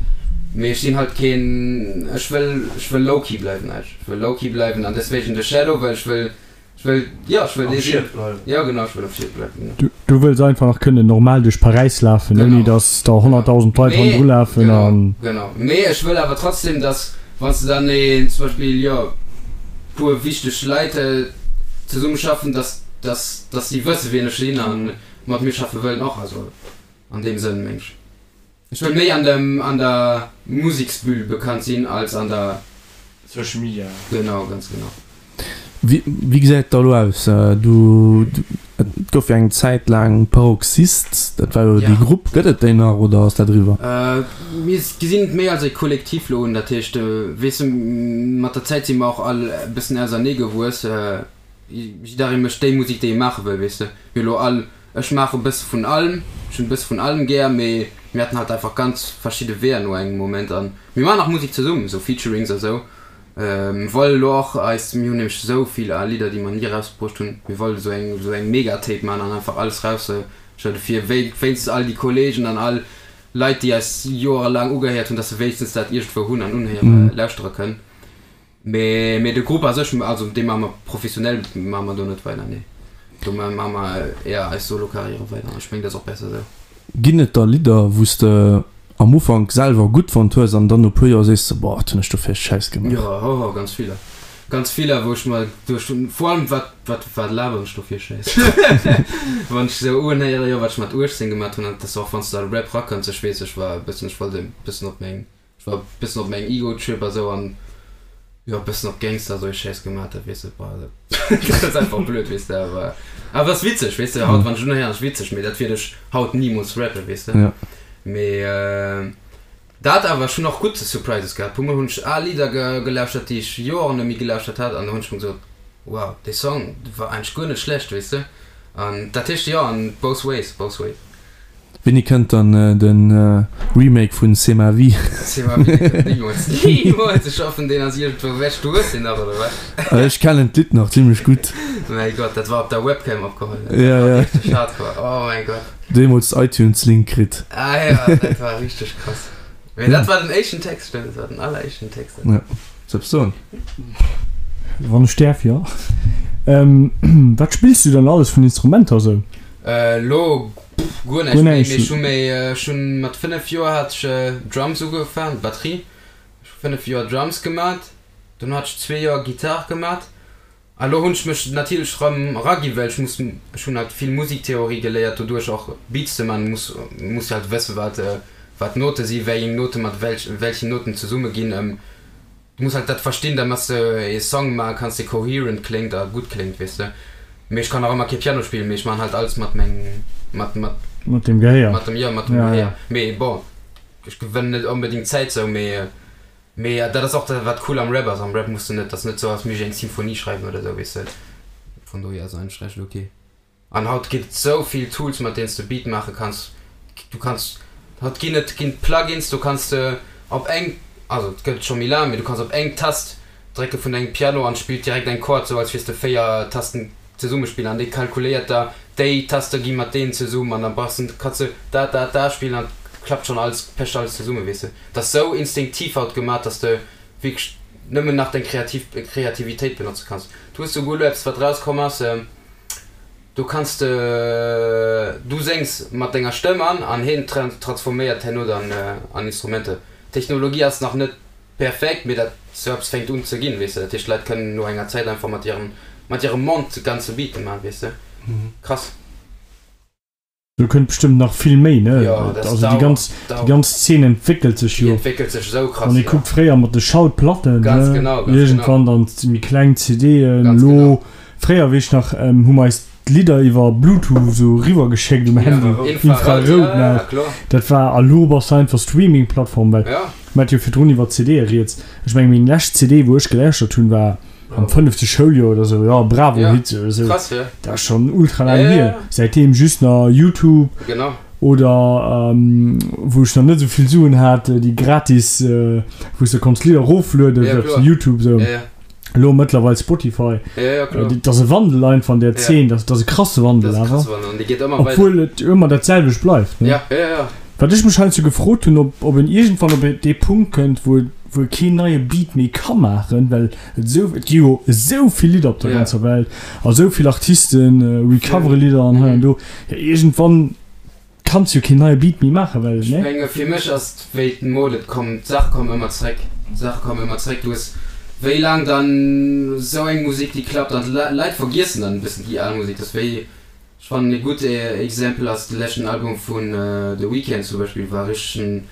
mee ech sinn halt keen, ech wëll, ech wëll low-key bleiwen eigentlech. Ech wëll low-key bleiwen an deswegen The Shadow, well ech wëll, Ech wëll, jo, ech wëll dee sinn. Jo, genau, ech wëll am Schiet bleiwen, genau. Du wëlls einfach nach kënnen normal duerch Paräis lafen, ouni datt der 100.000 Leit hannendru lafen an. Genau, genau. Mee ech wëll awer trotzdem, datt, wann s de dann een, zum Beispill, jo, puer wichteg Leit zesummeschaffen, datt, datt, datt si wësse wien ech sinn a mat mir schaffe wëllen och. Also an deem Sënn, meng ech. Ech wëll méi an dem, an der Museksbühl bekannt sinn als an der. Social Media. Genau, ganz genau. Wéi, wéi gesäit et da elo aus? Du, et gouf jo eng Zäit laang Paroxyst, dat war jo déi Grupp. Gëtt et déi nach oder ass dat eriwwer? Mir gesinn et méi als e Kollektiv elo un. Dat heescht, weess de, mat der Zäit si mer och all e bëssen ausernee gewuess. Jidderee mécht déi Musek, déi e maache wëll, weess de. Mir elo all, ech maache e bësse vun allem, ech hunn e bësse vun allem gär, mee mir haten halt einfach ganz verschidde Weeër no engem Moment. An mir maachen nach Musek zesummen, esou Featurings a sou. Mir wolle elo och eis, mir hunn nämlech esou vill al Lidder, déi mer ni erausbruecht hunn, mir wolle esou eng, esou eng Mega-Tape maachen an einfach alles erausschëdde fir wéinstens all déi Kolleegen an all Leit, déi eis joerelaang ugehéiert hunn, dass se wéinstens dat iergendwou hunn an unhéiere, lauschtere kënnen. Mee, mee de Grupp a sech, also dee maache mer professionell, maache mer do net weider, nee. Do maache mer éier eis Solo-Karriere weider an ech mengen, dat ass och besser esou. Ginn et da Lidder, wou s de am Ufank selwer gutt fonnt hues an dann no puer Joer sees de, boah, wat hunn ech do fir e Schäiss gemaach? Jo, hoho, ganz viller. Ganz viller, wou ech mer geduecht hunn, vor allem wat, wat, wat laberen ech do fir e Schäiss? Wann ech esou unhéieren, jo, wat ech mat 18 gemaat hunn, an dat ass och wann s de a Rap rakënns, ech weess, ech war e bëssen, ech wollt e bëssen op meng, ech war e bëssen op mengem Ego-Trip a sou an jo, e bëssen op Gangster, esou e Schäiss gemaat, dat weess de, boah, dat ass einfach blöd, weess de, awer, awer ass witzeg, weess de, haut, wann ech unhéieren, ass witzeg, mee dat wiert ech haut nimools rappen, weess de. Mee dat awer, ech hunn och gutt Surprises gehat. Puer mol hunn ech al Lidder gelauschtert, déi ech Joren net méi gelauschtert hat, an do hunn ech mer gesot, wow, dee Song war eigentlech guer net schlecht, weess de. An dat heescht, jo, an both ways, both ways. Wéini kënnt dann de Remake vun C'est ma vie? C'est ma vie, dee kënnt nimools, nimools! Ech hoffen, deen ass iergendwou ewech. Du hues deen nach, oder wat? Ech kennen d'Lidd nach zimlech gutt. Mäi Gott, dat war op der Webcam opgeholl, dat war richteg hardcore, oh mäi Gott. Deemools iTunes Link kritt. Ah jo, dat war richteg krass. Mee dat war den éischten Text, stëmmt, dat war den alleréischten Text. Ja, soll soen. Wann ech däerf, jo. Wat spills du dann alles vun Instrumenter esou? Elo guer näischt méi, mee ech hu méi, ech hunn mat 5 Joer hat ech Drums ugefaangen, Batterie. Ech hu 5 Joer Drums gemat, dono hat ech zwee Joer Gittar gemat. A lo hunn ech mech natierlech rëm eragi well ech muss, ech hunn halt vill Musiktheorie geléiert doduerch och Beats ze man, muss muss halt wësse wat wat Note si, wéieng Note mat welch welchen Noten zesumme ginn. Du muss halt dat verstinn da mat s de ee Song maache kanns dee coherent kléngt a gutt kléngt weess de. Mee ech kann nach ëmmer kee Piano spillen, mee ech man halt alles mat meng mat mat Mat dem Gehéier. mat dem jo mat dem Gehéier. Mee bon ech gewënnen net onbedingt Zäit sou mee Mee dat ass och dat wat cool am Rap ass. Am Rap muss de net, ass net sou als misst ech eng Symphonie schreiwen oder sou, weess de. Von dohier ass eigentlech recht ok. An haut ginn et sou vill Tools mat deenen s de Beat maache kanns. Du kanns, haut ginn et ginn Plugins, do kanns de op eng, also et gëtt et scho méi laang, mee du kanns op eng Tast drécke vun dengem Piano an spillt direkt eng Chord, sou als wiers de 4 Tasten zesumme spillen an dee kalkuléiert da déi Taste gi mat deenen zesummen an da brauchs de, kanns de da da da spillen an klappt schonn alles, pecht alles zesumme, weess de. Et ass sou instinktiv haut gemat, dass de wierklech nëmmen nach deng kreativ Kreativitéit benotze kanns. Du hues souguer elo eppes wat rauskomm ass, do kanns de, du séngs mat denger Stëmm an an hien transforméiert herno dann an Instrumenter. D'Technologie ass nach net perfekt, mee dat sou eppes fänkt un ze ginn, weess de. Dat heescht d'Leit kënnen no enger Zäit einfach mat hirem mat hirem Mond ganze Beate man, weess de. Krass. Do kënnt bestëmmt nach vill méi, ne? Jo, dat Also déi ganz, dauert. déi ganz Zeen entwéckelt sech Déi jo. entwéckelt sech esou krass, Wann ee jo. kuckt, fréier mat de Schallplatten, Ganz ne? genau, ganz Iergendwann genau. dann méi kleng CDen, Ganz elo, genau. fréier weess ech nach, hu mer eis d'Lidder iwwer Bluetooth esou eriwwer geschéckt um Handy, Infrarout, Infrarout ja, ja, nach. kloer. Dat war, a lo bass de einfach Streaming-Plattform, well Ja. mer hat jo virdrun iwwer CDe rieds. Ech meng, meng lescht CD, wou ech gelauschtert hunn, war am fënnefte Schouljoer oder sou, jo, Bravo Ja, Hits oder sou. krass, ja. Dat ass schonn ultra laang Ja, ja, hier. ja. Säitdeem just nach Youtube Genau. oder wou ech nach net esou vill Suen hat, déi gratis, wou s de konns Lidder eroflueden Ja, op kloer. Youtube sou. Ja, ja. Elo mëttlerweil Spotify. Ja, ja, kloer. Dat ass e Wandel einfach an der Ja. Zeen, dat ass e krasse Wandel Dat ass e awer. krasse Wandel an dee geet ëmmer weider. Obwuel et ëmmer dat selwecht bleift, ne? Ja, ja, ja. Wat ech mech heiansdo gefrot hunn, ob ob en iergendwann op dee Punkt kënnt, wou wou e keen neie Beat méi ka maachen, well et esou, et gi jo esou vill Lidder op der Ja. ganzer Welt a esou vill Artisten recovere Lidder an hei an do. Jo, iergendwann kanns jo keen neie Beat méi maachen, well, Ech ne? menge fir mech ass et wéi d'Mode, et kommen, d'Saache kommen ëmmer zréck, d'Saache kommen ëmmer zréck. Du hues wéi laang dann esou eng Musek déi klappt an d'Leit vergiessen dann e bëssen déi al Musek. Dat ass wéi. Ech fannen ee gutt Exempel ass de leschten Album vun The Weeknd zum Beispill, war richteg en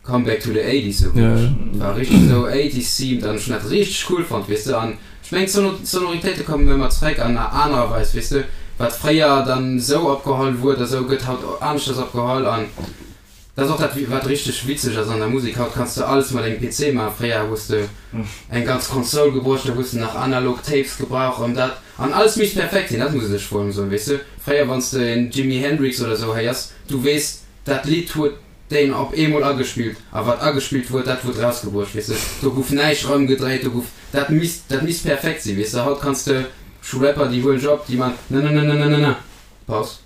Comeback to the Eighties sou wierklech. War richteg sou Eighties themed an ech hunn dat richteg cool fonnt weess de. An ech mengen d'Sonoritéite kommen ëmmer zréck an anerer Weis weess de. Wat fréier dann sou opgeholl wuar oder sou gëtt haut aneschters opgeholl an Dat ass och dat wat richteg witzeg ass an der Musek, haut kanns de alles mat engem PC maachen, fréier hues de eng ganz Console gebruecht, da hues de nach analog Tapes gebrauch an dat an alles misst perfekt sinn, dat muss ech vor allem soen, weess de, fréier wanns de en Jimi Hendrix oder sou héiers, du weess dat Lidd huet deen op eemol agespillt a wat agespillt huet dat huet rausgebruecht, weess de, do guff näischt erëmgedréit, do guff dat misst dat misst perfekt sinn, weess de, haut kanns de, ech hu Rapper déi huelen ech op, déi man nananananana, Paus.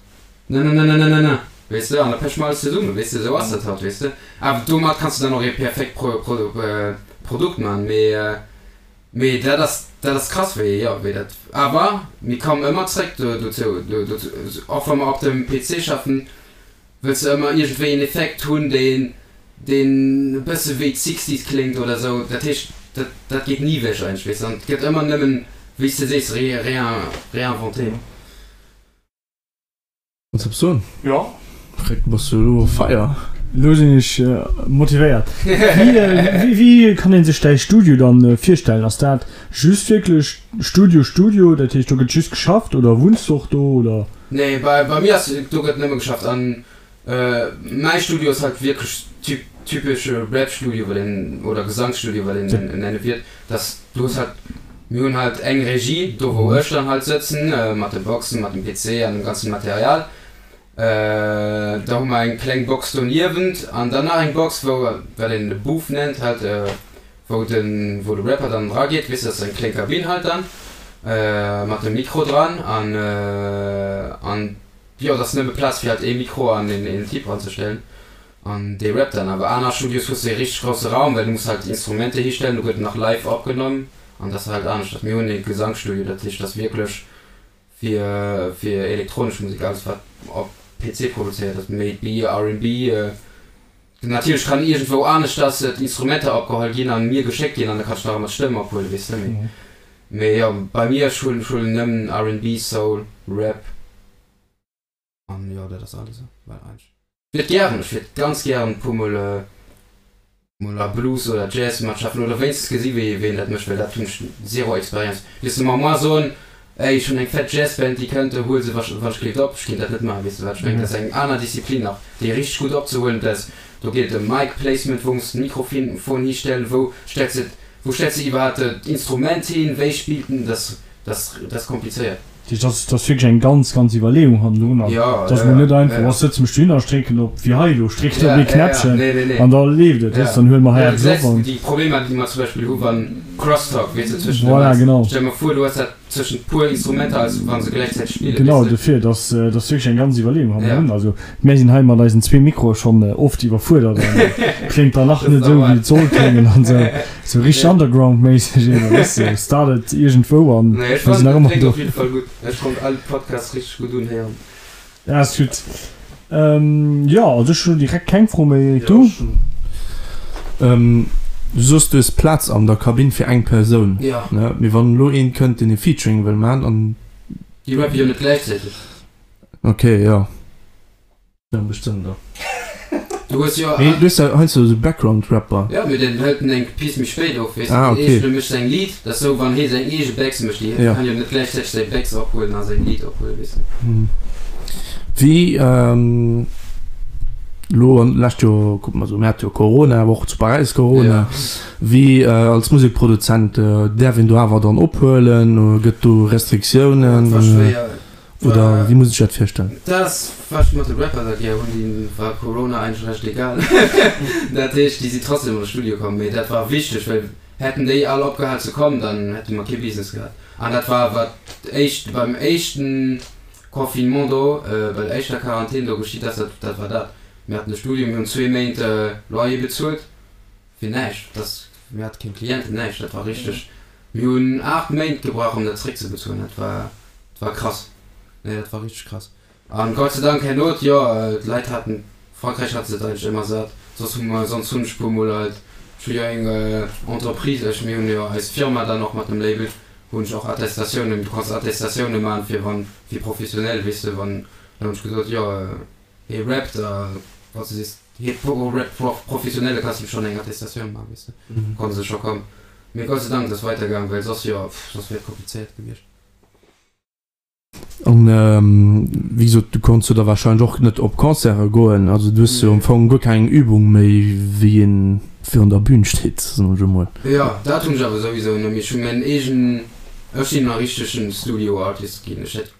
Nananananana, weess de, an da peche mer alles zesummen, weess de, esou ass dat halt, weess de. Awer domat kanns de dann och ee perfekt Pro, Pro, Produkt man, mee, mee dat ass, dat ass krass, wéi, jo, wéi dat, awer mir kommen ëmmer zréck do, dozou, do, dozou, och wa mer op dem PC schaffen, wëlls de ëmmer iergendwéi en Effekt hunn, deen, deen e bësse wéi d'Sixties kléngt oder esou, dat heescht, dat, dat geet ni ewech eigentlech, weess de, an et gëtt ëmmer nëmmen, wéi s de sees, ré, réin, réinventé. Kanns eppes soen? Jo. Rick, bass du elo fire? Elo sinn ech motivéiert. Wéi, wéi kann een sech däi Studio dann virstellen? Ass dat just wierklech Studio, Studio, dat heescht do gëtt just geschafft oder wunns du och do oder? Nee, bei, bei mir ass, do gëtt nëmme geschafft an mäi Studio ass halt wierklech typ, typesche Rap-Studio, wat een, oder Gesangsstudio, wat een nenne wiert. Dass du hues halt, mir hunn halt eng Regie, do wou ech dann halt sëtzen, mat de Boxen, mat dem PC an dem ganzen Material. Da hu mer eng kleng Box doniewent an dann nach eng Box, wou, wat een de Booth nennt halt, wou de, wou de Rapper dann drageet, weess de, dat ass eng kleng Kabinn halt dann, mat dem Mikro dran an, an jo, et ass nëmme Plaz fir halt ee Mikro an een Typ ranzestellen. An dee rappt dann. Awer aner Studios hues de ee richteg grousse Raum, well du muss halt Instrumenter histellen, do gëtt nach live opgenommen an dat ass halt aneschters. Mir hunn ee Gesangsstudio, dat heescht, dat ass wierklech fir fir elektronesch Musek, alles wat op PC produzéiert ass, méi B, RnB. Natierlech kann iergendwou aneschters d'Instrumenter opgeholl ginn an mir geschéckt ginn an da kann ech nach ëmmer d'Stëmm ophuelen, weess de. Mee mee jo, bei mir, ech huelen ech huelen nëmmen RnB, Soul, Rap. An jo, dat ass alles, well eigentlech. Ech wiert gären, ech wiert ganz gären e puer mol mol a Blues oder Jazz matschaffen oder wéinstens gesi wéi wéi een dat mécht, well dat hunn ech zero Experience. Wiers de mer moar soen, ey ech hunn eng fett Jazzband déi kënnt, huel se wann ech gleeft op, ech kéint dat net maachen, weess de wat ech mengen? Dat ass eng aner Disziplin nach, déi richteg gutt opzehuelen, dat do geet et ëm Mic Placement, wou muss de Mikrofon histellen, wou stells de wou stells de iwwerhaapt d'Instrument hin, wéi spillt en, dat ass dat ass komplizéiert. Dat ass, dat ass wierklech eng ganz, ganz Iwwerleeung hannendrun. An Ja, et ass ja, mol ja, net einfach, ja. oh, sëtze mech dohinner, strécken op, wéi hei elo, strécken Ja, op ee ja, ja. Knäppchen Nee, nee, nee. an da leeft et, Ja. weess, dann huele mer hei Ja, du eppes op gesäis an. déi Problemer, déi mer zum Beispill hu wann Crosstalk, weess de, zwëschen de Voilà, Mics. genau. Stell mer vor, du hues dat zwëschent puer Instrumenter, als wa se gläichzäiteg spillen, Genau, weess de. dofir, dat ass, dat ass wierklech eng ganz Iwwerleeung Ja. hannendrun. Also, mär sinn hei mat eisen zwee Mikroe schonn oft iwwerfuerdert an kléngt dann nach Dat net ass esou, wéi normal. et soll kléngen an esou. Sou richteg Nee. Underground-méisseg eben, weess de, startet iergendwou an Nee, ech mir sinn fannen, nach dat ëmmer kléngt do. op jidde Fall gutt. Ech konnt all Podcasts richteg gutt unhéieren. Ja, ass gutt. Jo, also ech hunn direkt keng Fro méi, Eric, Jo, du? ech hunn. Du soos, du hues Plaz an der Kabinn fir eng Persoun, Ja. ne? Mee wann elo een kënnt, deen e Featuring wëll man an. Déi rappe jo net gläichzäiteg. Okay, jo. Ja, bestëmmt och. Du hues jo. Mee du hues ja heiansdo esou Background-Rapper. Ja, mee den hëlt en eng Piece méi spéit op, weess de. Ah, okay. Eescht, e mécht säin Lidd, dat ass sou, wann hee seng eege Backs mécht, déi Ja. kann jo net gläichzäiteg säi Backs ophuelen a säin Lidd ophuelen, weess de. Wéi elo an d'lescht Joer, kucke mer esou, mir hate jo Corona, awer och zu Paräis Corona. Ja. Wéi als Musekproduzent, däerf een do awer dann ophuelen? Gëtt do Restriktiounen? Dat war schwéier. Oder wéi muss ech dat virstellen? Dat ass wat ech mat de Rapper da gär hunn, déi war Corona eigentlech recht egal. Dat heescht, déi si trotzdem an de Studio komm. Mee dat war wichteg, well hätten déi all opgehal ze kommen, dann hätte mer kee Business gehat. An dat war wat éischt beim éischten Confinement do, bei der éischter Quarantän do geschitt ass, dat dat war dat. Mir haten de Studio, mir hunn zwee Méint Loyer bezuelt fir näischt. Dat mir hate keng Clienten, näischt. Dat war richteg Mir hunn 8 Méint gebrauch om dat zréck ze bezuelen, dat war, dat war krass, nee dat war richteg krass. An Gott sei Dank herno, jo d'Leit haten, Frankräich hat se et eigentlech ëmmer sat, soss hu mer, sonst hunn ech puer mol halt, ech hu jo eng Entreprise, ech, mir hunn jo eis Firma dann och mat dem Label. Hunn ech och Attestatiounen, du kanns Attestatiounen man fir wann, fir professionell, weess de, wann, dann hunn ech gesot, jo hie rappt a wann s de sees hie rappt professionell, da kanns de schonn eng Attestatioun man, weess de, konnte se scho kommen. Mee Gott sei Dank, et ass weidergaang, well soss, jo, soss wier et komplizéiert gewiescht. An wéi gesot, du konns jo da wahrscheinlech och net op Concerte goen. Also du hues jo am Fong guer keng Übung méi, wéi een virun der Bühn steet, soen ech emol. Jo, dat hunn ech awer souwisou net méi. Ech hunn mäin eegen, ech sinn e richtegen Studio Artist ginn. Ech hätt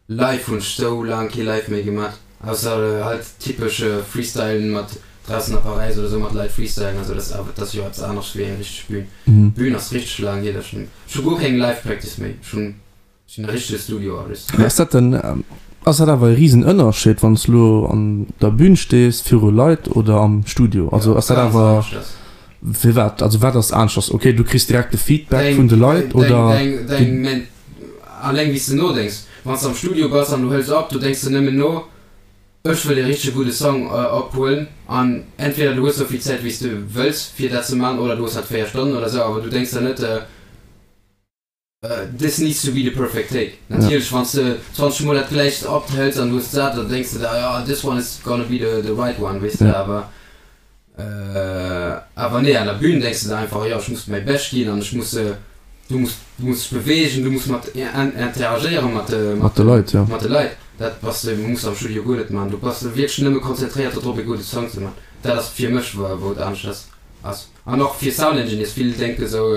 live hunn ech sou laang kee Live méi gemat, ausser halt typesch Freestylen mat draussen a Paräis oder sou mat Leit freestylen a sou. Dat ass awer, dat ass jo eppes anescht wéi eng richteg Bühn. Bühn ass richteg laang hier, dass ech, ech hu guer keng Live Practice méi. Ech hunn. Sinn e richtege Studio Artist. Ass dat denn, ass dat awer e risen Ënnerscheed wann s du lo an der Bühn stees viru Leit oder am Studio? Also ass dat awer, firwat, also wat ass aneschters? Ok du kriss direkt de Feedback vun de Leit oder? Deng, deng, alleng wéi s de nodenks. Wann s de am Studio bass an du hëls op, do denks de nëmmen no, ech wëll e richtege gudde Song ophuelen an entweder du hues sou vill Zäit wéi s de wëlls fir dat ze man oder du hues halt 4 Stonnen oder sou, awer du denks der net, This needs to be the perfect take. Natierlech, wann s de 20 mol dat gläicht ophëls an du hues d'sat, dann denks de der, jo, this one is gonna be the the right one, weess de. Awer awer nee, an der Bühn denks de der einfach, jo, ech muss mäi Bescht ginn an ech muss, du muss du muss dech beweegen, du muss mat interagéiere mat de mat de Leit, jo. Mat de Leit. Dat bass de muss am Studio guer net man. Du bass wierklech nëmme konzentréiert dodrop, e gudde Song ze man. Dat ass fir mech, wou et anescht ass. An och fir Sound Engineers, vill denke sou,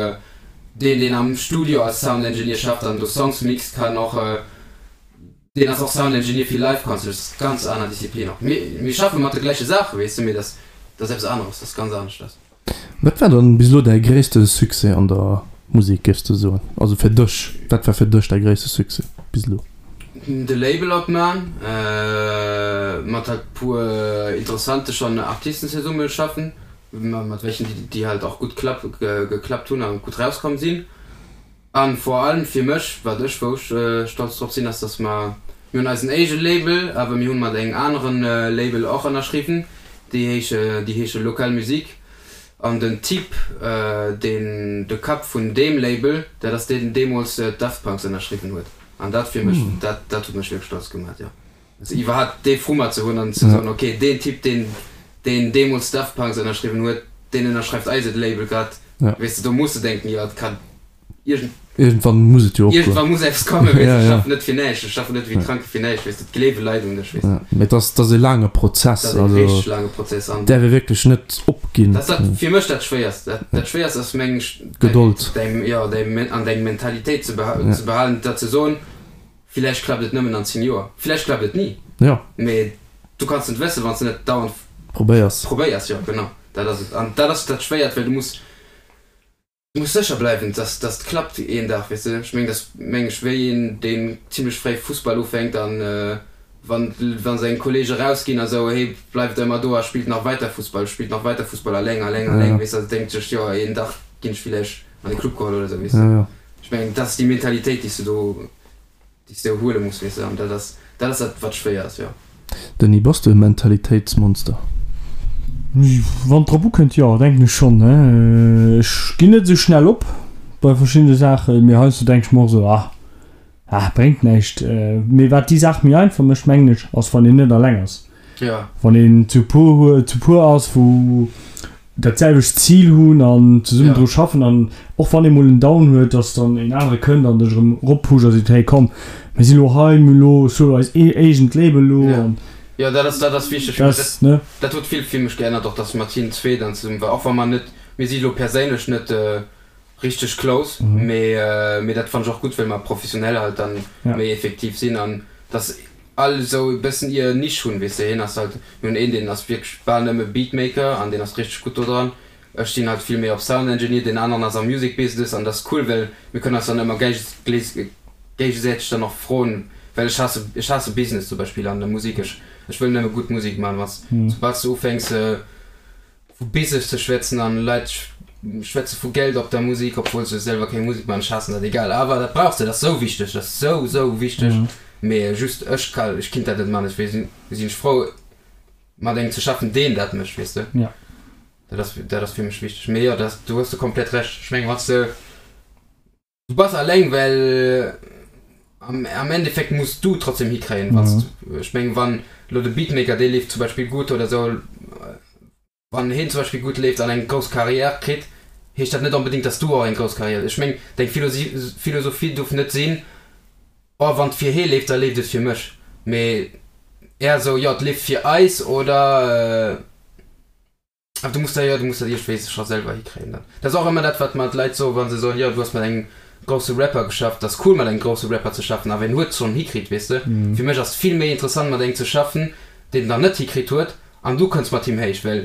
deen deen am Studio als Sound Engineer schafft an do Songs mixt kann och, deen ass och Sound Engineer fir Live Concerts, dat ass ganz aner Disziplin och. Mir mir schaffe mat de gläiche Saache weess de, mee dat ass eppes aneres, dat ass ganz aneschters. Wat war dann bis elo däi gréisste Succès an der Musek, géifs de soen? Also fir dech, wat war fir dech däi gréisste Succès bis elo? De Label opman, mat halt puer interessante schon Artisten zesumme schaffen. Mat welchen déi halt och gutt geklappt hunn a gutt rauskomm sinn. A vor allem fir mech, wat ech, wou ech stolz drop sinn, ass, dass mer, mir hunn eisen éige Label, awer mir hunn mat engem aneren Label och ënnerschriwwen, déi heesche, déi heesche Local Musique. An den Typ, deen, de Kapp vun deem Label, dat ass deen, deen deemools d'Daft Punks ënnerschriwwen huet. An dat fir mech, dat, dat huet mech wierklech stolz gemaach, jo. Also iwwerhaapt dee Frummer ze hunn an ze soen, ok, deen Typ, deen, deen deemools Daft Punks ënnerschriwwen huet, deen ënnerschreift eiset Label grad, weess de, do muss de denken, jo, et kann iergend. Iergendwann muss et jo opgoen. Iergendwann muss eppes kommen, weess de, ech schaffen net fir näischt, ech schaffen net wéi Kranke fir näischt, weess de, et gleewe Leit un dech, weess de. Mee et ass, et ass e laange Prozess, Et ass e also richteg laange Prozess an. däerf ee wierklech net opginn. Dat ass dat fir mech dat Schwéierst, dat, dat Schwéierst ass meng ech, Gedold. däi, jo, däi, an deng Mentalitéit ze behalen, dat ze soen, Villäicht klappt et nëmmen an 10 Joer, villäicht klappt et ni. Jo. Mee du kanns net wëssen, wann s de net dauernd Probéiers. probéiers. Jo, genau, dat ass et. An dat ass dat Schwéiert, well du muss, du muss sécher bleiwen, dass, dass et klappt een Dag, weess de. Ech mengen, dat ass, meng ech, wéi een, deen zimlech fréi Fussball ufänkt an wann, wa seng Kollege rausginn a sou, hee bleift ëmmer do a spillt nach weiter Fussball, spillt nach weiter Fussball, alleng, alleng, alleng, weess de, a denkt sech, jo, een Dag ginn ech villäicht an de Club geholl oder sou, weess de. Jo, jo. Ech mengen, dat ass déi Mentalitéit, déi s de do, déi s de huele muss, weess de, an dat ass, dat ass dat, wat schwéier ass, jo. Denis, bass du e Mentalitéitsmonster? Wann et drop ukënnt, jo, denken ech schonn. Ech ginn net esou schnell op bei verschiddene Saachen, mee heiansdo denke ech mer och esou, ah, ah, bréngt näischt. Mee wat déi Saach méi einfach mécht, mengen ech, ass wann een net alleng ass. Ja. Wann een zu puer huet, zu puer ass, wou dat selwecht Zil hunn an zesummen dru schaffen an och wann ee mol en Down huet, dass dann een anere kënnt an dech erëm eroppusht a seet, hey komm, mir si lo hei, mir hu lo sou eist eegent Label lo an. Jo, dat ass, dat ass wichteg. Dat, ne? Dat huet vill fir mech geännert och, dass mat hinnen zwee dann zesummen war, och wa mer net, mir si lo perséinlech net richteg close, mee, mee dat fannen ech och gutt, well mer professionell halt dann méi effektiv sinn an dass all esou e bëssen ihr Nisch hunn, weess de, hien ass halt, mir hunn een deen ass wierklech bal nëmme Beatmaker an deen ass richteg gutt do dran, ech sinn halt vill méi op Sound Engineer, deen aneren ass am Music Business an dat ass cool, well mir kënnen eis dann ëmmer géigesäiteg dann och froen, well ech haasse, ech haasse Business zum Beispill an der Musek, ech, ech wëll nëmme gutt Musek man, wann s, soubal s de ufänks vu Business ze schwätzen an Leit schwätze vu Geld op der Musik, obwuel se selwer keng Musik man, ech haassen dat, egal, awer dat brauchs de, dat ass sou wichteg, dat ass sou sou wichteg, mee just ech ka, ech kinnt dat net man, dofir sinn sinn ech frou mat engem ze schaffen deen dat mécht, weess de, dat ass dat ass fir mech wichteg, mee jo dat, do hues de komplett Recht, ech mengen wann s de. Du bass alleng, well am am Endeffekt muss du trotzdem hikréien, wann s du, ech mengen, wann elo de Beatmaker, dee leeft zum Beispill gutt oder esou, wann heen zum Beispill gutt leeft an eng grouss Carrière kritt, heescht dat net onbedéngt, dass du och eng grouss Carrière, ech mengen, deng Philosophie duerf net sinn, oh wann et fir hee leeft, da leeft et fir mech, mee eher esou, jo et leeft fir eis oder. Awer du muss dat, jo, du muss dat iergendwéi scho selwer hikréien dann. Dat ass och ëmmer dat, wat mer d'Leit soen, wa se soen, jo, du hues mat engem grousse Rapper geschafft. Dat ass cool, mat engem grousse Rapper ze schaffen, awer en huet et schonn hikritt, weess de. Fir mech ass et vill méi interessant, mat engem ze schaffen, deen et nach net hikritt huet, an du kënns mat him héich, well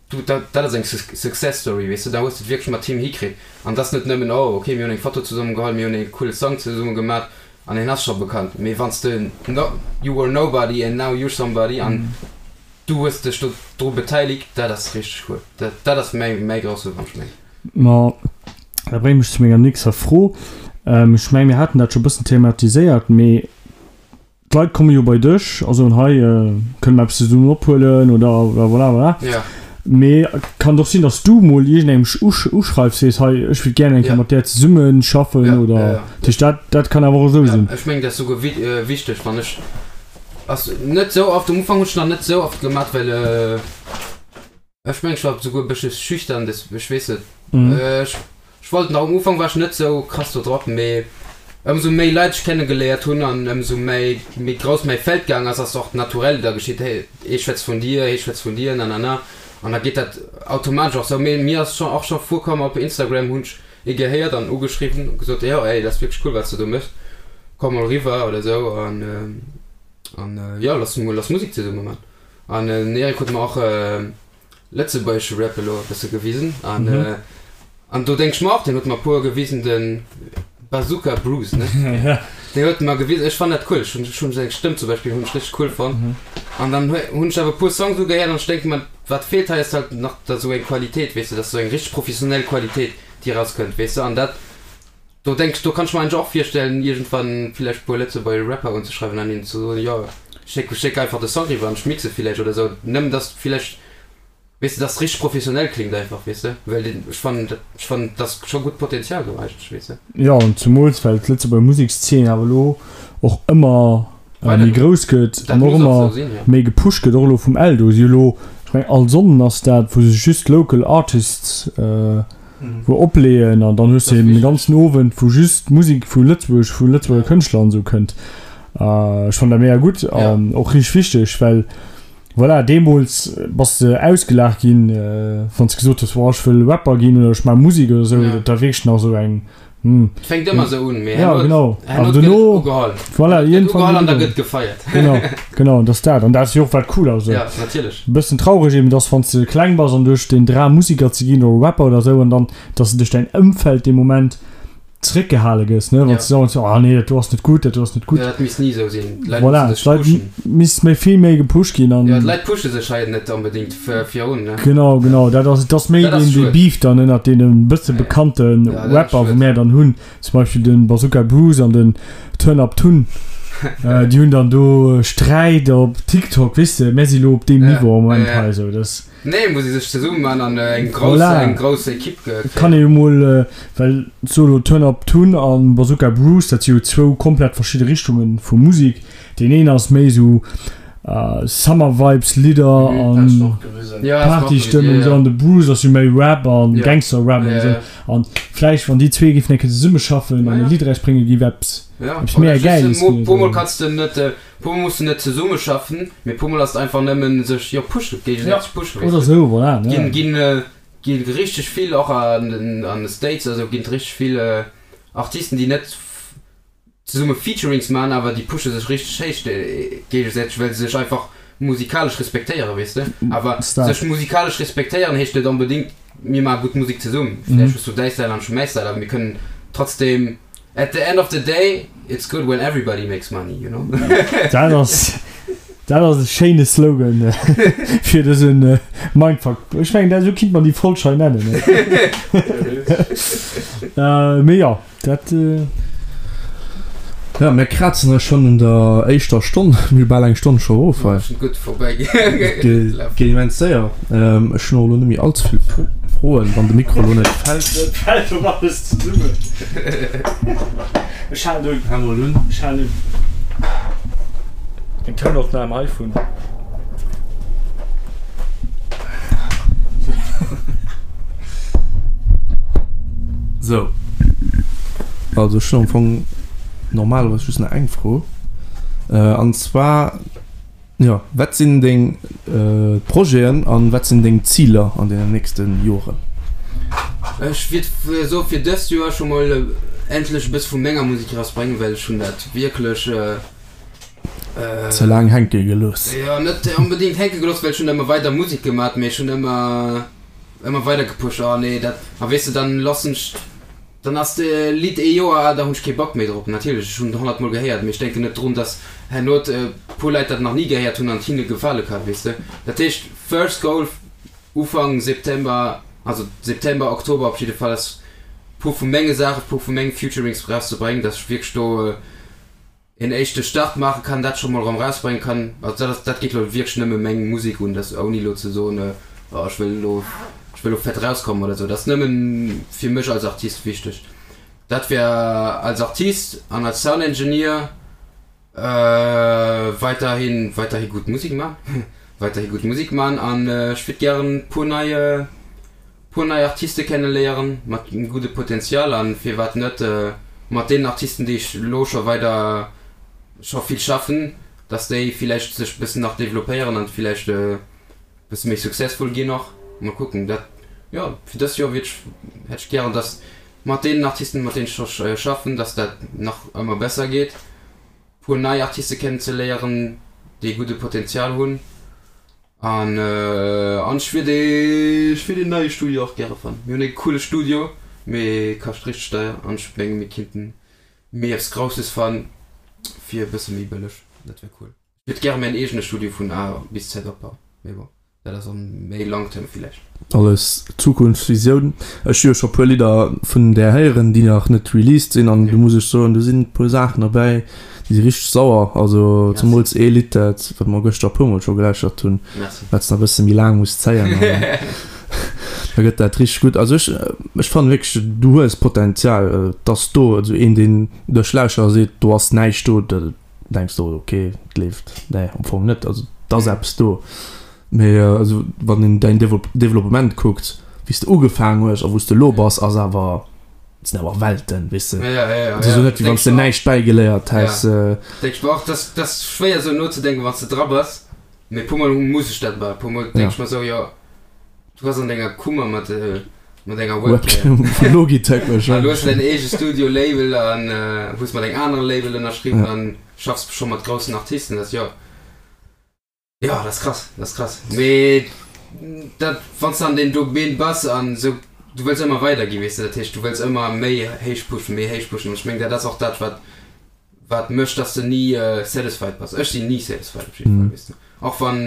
du, dat, dat ass eng Success Story, weess de. Da hues de et wierklech mat him hikritt. An et ass net nëmmen, oh, okay, mir hunn eng Foto zesumme geholl, mir hunn ee coole Song zesumme gemat an hien ass scho bekannt. Mee wann s de, no, you were nobody and now you're somebody an Du hues dech do dru beteiligt, dat ass richteg cool. Dat, dat ass mäi, mäi grousse Wonsch, méi. Ma dat bréngt mech zu menger nächster Fro. Ech mengen, mir haten dat scho e bëssen thematiséiert, mee d'Leit komme jo bei dech a soen, hei, kënne mer eppes zesummen ophuelen oder voilà, voilà. Ja. Mee et kann och sinn, datt s du mol iergendengem uschreifs, sees, hei, ech wéilt gären eng Kéier mat där zesumme schaffen Ja, oder. ja, ja. Dat heescht, dat, dat kann awer och esou Ja, sinn. ech mengen, dat ass souguer wichteg, wann ech. Ass net sou oft, um Ufank hun ech nach net sou oft gemat well ech mengen ech war souguer e bëssche schüchtern des ech weess net ech ech wollt nach um Ufank war ech net sou krass do drop mee ëmsou méi Leit ech kenne geléiert hunn an ëmsou méi méi grouss mäi Feld gaang ass ass och naturell da geschitt hey ee schwätzt vun dir hee schwätzt vun dir nanana an da geet dat automatesch och sou mee mir ass scho och scho virkomm op Instagram hunn ech ee gehéiert an ugeschriwwen a gesot, jo ey, dat ass wierklech cool wat s de do méchs, komm mol eriwwer oder esou an an jo lass mol lass Musek zesumme man. An den Eric huet mer och lëtzebuergesche Rap elo e bësse gewisen an an do denk ech mer och, deen huet mer e puer gewisen, de Bazooka Bruce ne, deen huet mer gewisen, ech fannen dat cool, ech hunn ech hunn seng Stëmm zum Beispill hunn ech richteg cool fonnt an dann hunn ech awer e puer Songs ugehéiert an ech denke mer, Wat feelt hei ass halt nach da sou eng Qualitéit, weess de, dass sou eng richteg professionell Qualitéit déi erauskënnt, weess de, an dat do denk ech, do kann ech mer eigentlech och virstellen iergendwann villäicht e puer lëtzebuergesch Rapper unzeschreiwen an hinnen ze soen, jo schéck schéck einfach de Song riwwer an ech mixe villäicht oder sou, nëmmen dass villäicht, weess de, dass richteg professionell klingt einfach, weess de, well den ech fannen dat ech fannen dass scho gutt Potenzial do eigentlech, weess de. Jo, an zumools well d'Lëtzebuerger Musekszeen awer elo och ëmmer méi grouss gëtt an och ëmmer méi gepusht gëtt, och elo vum Eldo si elo, ech mengen all Sonnden ass dat, wou se just local artists wou opleeën an dann hues de eben de ganzen Owend wou just Musek vu Lëtzebuerg, vu Lëtzebuerger Kënschtler an esou kënnt. Ech fannen dat mega gutt an och richteg wichteg, well voilà, deemools bass de ausgelaacht ginn, wann s de gesot hues, boah ech wëll Rapper ginn oder ech maache Musek oder esou, dat war wierklech nach esou eng Hm. Et fänkt ëmmer esou un, mee Ja, herno, genau. herno Awer gëtt et dono, ugeholl. voilà, Gëtt iergendwann ugeholl gëtt an da ugeholl. gëtt gefeiert. Genau, genau, dat ass dat. An dat ass jo och wat cool ass. Ja, natierlech. E bëssen traureg eben, dass wann s de kleng bass an du hues den Dram Musiker ze ginn oder Rapper oder esou an dann, dass de duerch däin Ëmfeld dee Moment zeréckgehale gëss, ne, wann Ja. s de soen, ah nee, dat do ass net gutt, dat do ass net gutt. Ja, dat misst ni esou sinn. D'Leit Voilà, musse sech d'Leit pushen. misst méi vill méi gepusht ginn an. Ja, d'Leit pushe sech hei net onbedéngt virun, ne? Genau, genau, dat ass, et ass méi Dat ass deen, dee schued. Beef dann ënnert deene bësse bekannte Ja, dat ass Rapper, wou schued. mär dann hunn, zum Beispill de Bazooka Bruce an den Turn Up Tun, déi hunn dann do Sträit op TikTok, weess de, mär si lo op deem Ja, Niveau am Moment ja, ja. hei esou, dass. Nee, muss ee sech zesummen man an eng grouss, Voilà. eng grouss Equipe Et kann ee kréien. jo mol, well solo Turn Up Tun a Bazooka Bruce, dat si jo zwou komplett verschidde Richtunge vu Musek. Deen een ass méi esou Summer Vibes Lidder an Partystëmmung esou an de Bruce ass jo méi Rap an Gangster Rap an esou. An vläicht wann déi zwee géifen eng Kéier zesummeschaffen an e Lidd erausbréngen, géif eppes eppes mega Gäiles ginn. Puer mol kanns de net, puer mol muss de net zesummeschaffen, mee puer mol ass et einfach nëmmen sech jo pushen, géigesäiteg pushen, Oder esou, voilà. Ginn ginn gi richteg vill och an den an de States a sou ginn et richteg vill Artisten déi net zesumme Featurings man, awer déi pushe sech richteg héich géigesäiteg, well se sech einfach musikalesch respektéieren, weess de. Awer sech musikalesch respektéieren heescht net onbedéngt, mir maache gutt Musek zesumm. Vläicht hues du däi Style an ech hu mäi Style, awer mir kënnen trotzdem, at the end of the day, it's good when everybody makes money, you know. Dat ass, dat ass e schéine Slogan fir dëse Mindfuck. Ech mengen, dat, esou kinnt man déi Folg hei nennen. Mee jo. Dat. Ja, mir krazen eis schonn un der éischter Stonn. Mir hu bal eng Stonn scho erof hei. Gutt vorbäi Geet immens séier. Ech hunn och elo net méi allze vill Froen. Froen, wann de Mikro lo net fält. Et fält op alles zesummen. Ech halen un. Hal mol un. Ech halen un. Eng Tounopnam heivun. Sou. Also ech hunn am Fong normalerweis just nach eng Fro. An zwar, jo, wat sinn deng Projeten an wat sinn deng Ziler an deenen nächste Joren? Ech wiert soe fir dëst Joer scho mol endlech e bësse vu menger Musek erausbréngen, well ech hunn dat wierklech. Ze laang hänke gelooss. Jo, net onbedéngt hänke gelooss, well ech hunn ëmmer weider Musek gemat, mee ech hunn ëmmer, ëmmer weider gepusht. Oh nee, dat, a weess de, dann lassen ech, dann ass de Lidd ee Joer al, da hunn ech kee Bock méi drop. Natierlech, ech hunn et honnertmol gehéiert, mee ech denken net drun, dass herno e puer Leit dat nach ni gehéiert hunn an et hinne gefale kann, weess de. Dat heescht, first goal, Ufank September, also September, Oktober op jidde Fall, ass puer vu menge Saachen, puer vu menge Featurings erauszebréngen, dass ech wierklech do, een éischte Start maache kann, dat scho mol erëm erausbréngen kann. Also dat ass, dat geet elo wierklech nëmme meng Musek un, dat ouni elo ze soen, oh ech wëll elo, ech wëll elo fett erauskommen oder esou. Dat ass nëmme fir mech als Artist wichteg. Dat wär als Artist an als Sound Engineer weiderhi, weiderhi gutt Musek man, weiderhi gutt Musek man an ech wiert gären e puer nei, puer nei Artiste kenne léieren mat engem gudde Potential an firwat net mat deenen Artisten déi ech elo scho weider scho vill schaffen, dass déi villäicht sech bëssen nach developpéieren an villäicht e bësse méi successful ginn och. Mol kucken dat jo fir dëst Joer wiert ech hätt ech gären dass mat deenen Artisten mat deenen ech scho schaffen, dass dat nach ëmmer besser geet, puer nei Artiste kennen ze léieren déi gudde Potential hunn. An an ech wier dee ech wier deen neie Studio och gäre fannen. Mir hunn e coole Studio, mee kascht richteg deier an ech menge mir kinnten méi eppes Grousses fann fir e bësse méi bëlleg. Dat wär cool. Ech wiert gäre mäin eegene Studio vun A bis Z opbauen, mee bon, dat ass an méi long term villäicht. Alles Zukunftsvisioun. Ech hu jo scho puer Lidder vun där héieren, déi nach net released sinn an do muss ech soen, do sinn e puer Saachen derbäi, déi si richteg sauer. Also zemools ee Lidd, dat wat mer gëschter e puer mol scho gelauschtert hunn, wat s de nach e bësse méi laang muss zéien an da gëtt dat richteg gutt. Also ech ech fannen wierklech, du hues Potenzial, et ass do. Also een deen dech lauschtert a seet, do ass näischt do, da denks de, ok, et leeft. Nee, am Fong net. Also et ass eppes do. Mee also wann een däin Developpement kuckt, wéi s de ugefaangen hues a wou s de elo bass, ass awer, et sinn awer Welten, weess de. Et ass elo net, wéi wann s de näischt bäigeléiert häss. Denk ech mer och. Dat ass schwéier esou nozedenken, wann s de dra bass. Mee puer mol muss ech dat awer. Puer mol denk ech mer esou, jo, du bass an denger Kummer mat mat enger Webcam. Webcam vu Logitech warscheinlech. An hues däin eege Studio-Label an hues mat engem anere Label ënnerschriwwen an schaffs scho mat groussen Artisten. Dat ass jo. Jo, dat ass krass, dat ass krass. Mee dat, wann s de an deem Domaine bass an esou, du wëlls ëmmer weider ginn, weess de. Dat heescht, du wëlls ëmmer méi héich pushen, méi héich pushen. An ech mengen, dat ass och dat, wat, wat mécht, dass de ni satisfied bass. Ech sinn ni satisfied op jidde Fall, weess de. Och wann,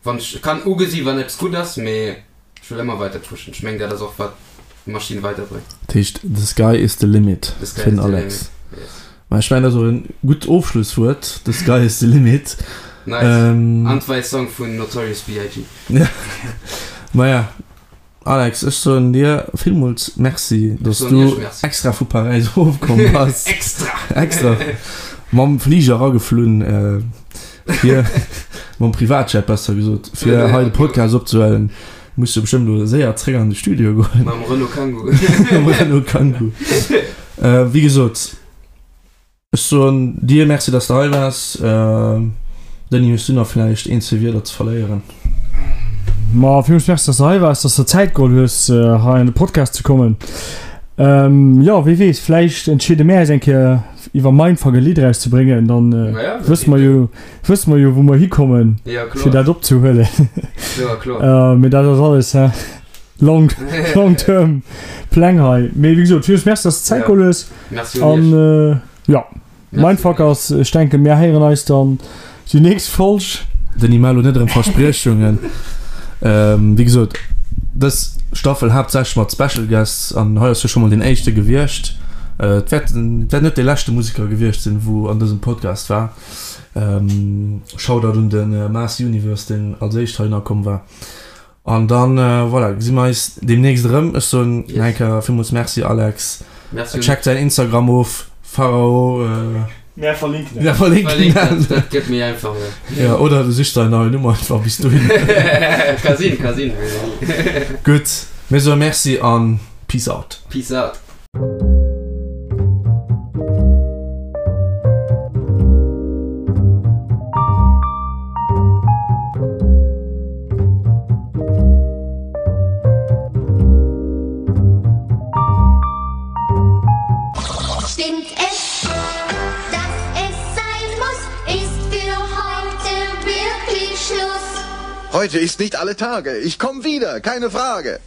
wann ech kann ugesi wann eppes gutt ass, mee ech wëll ëmmer weider pushen. Ech mengen, dat ass och wat d'Maschinn weiderbréngt. Dat heescht, the sky is the limit fir den Alex. Yes. Mä ech mengen, dat ass och e gutt Ofschlusswuert, The sky is the limit. Nice. An d'wei Song vun Notorious B.I.G. Maja, Alex, ech soen dir villmools Merci, dass du extra vu Paräis erofkomm bass. Extra! Extra! Mam Fliger erageflunn, fir, mam Privatjet besser gesot, fir hei de Podcast opzehuelen. Muss jo bestëmmt elo séier zréck an de Studio goen. Mam Renault Kangoo. Mam Renault Kangoo. Wéi gesot, ech soen dir Merci, dass de hei waars. Denis, hues du nach vläicht een, zwee Wierder ze verléieren? Ma villmools Merci, dass de hei waars, dass de der Zäit geholl hues, hei an de Podcast ze kommen. Jo, wie weess, vläicht entscheede mär eis eng Kéier iwwer Mindfuck e Lidd erauszebréngen, dann wësse mer jo, wësse mer jo wou mer hikommen fir dat opzehuelen. Mee dat ass alles he long long term Pläng hei. Mee wéi gesot, villmools Merci, dass de Zäit geholl hues. An jo, Mindfuckers, ech denken, mir héieren eis dann déi nächst Folg. Denis, maach elo net erëm Verspriechungen. Wéi gesot, dës Staffel haaptsächlech mat Special Guests an hei ass jo scho mol deen éischte gewiescht. Et wäert wäert net dee leschte Museker gewiescht sinn, wou an dësem Podcast war. Shoutout un de Mars Universe, deen als éischt heihinner komm war. An dann, voilà, gesi mer eis deemnächst erëm. Ech soen nach eng Kéier villmools Merci, Alex. Merci. Checkt säin Instagram of, Pharao. Mär verlinken dat. Mär verlinken dat. Dat gëtt méi einfach, jo. Jo, oder du sichs der en neien Numm einfach bis dohin. Ka sinn, ka sinn. Gutt, mir soe Merci an Peace out. Peace out. Stimmt es, dass es sein muss, ist für heute wirklich Schluss. Heute ist nicht alle Tage. Ich komm wieder, keine Frage.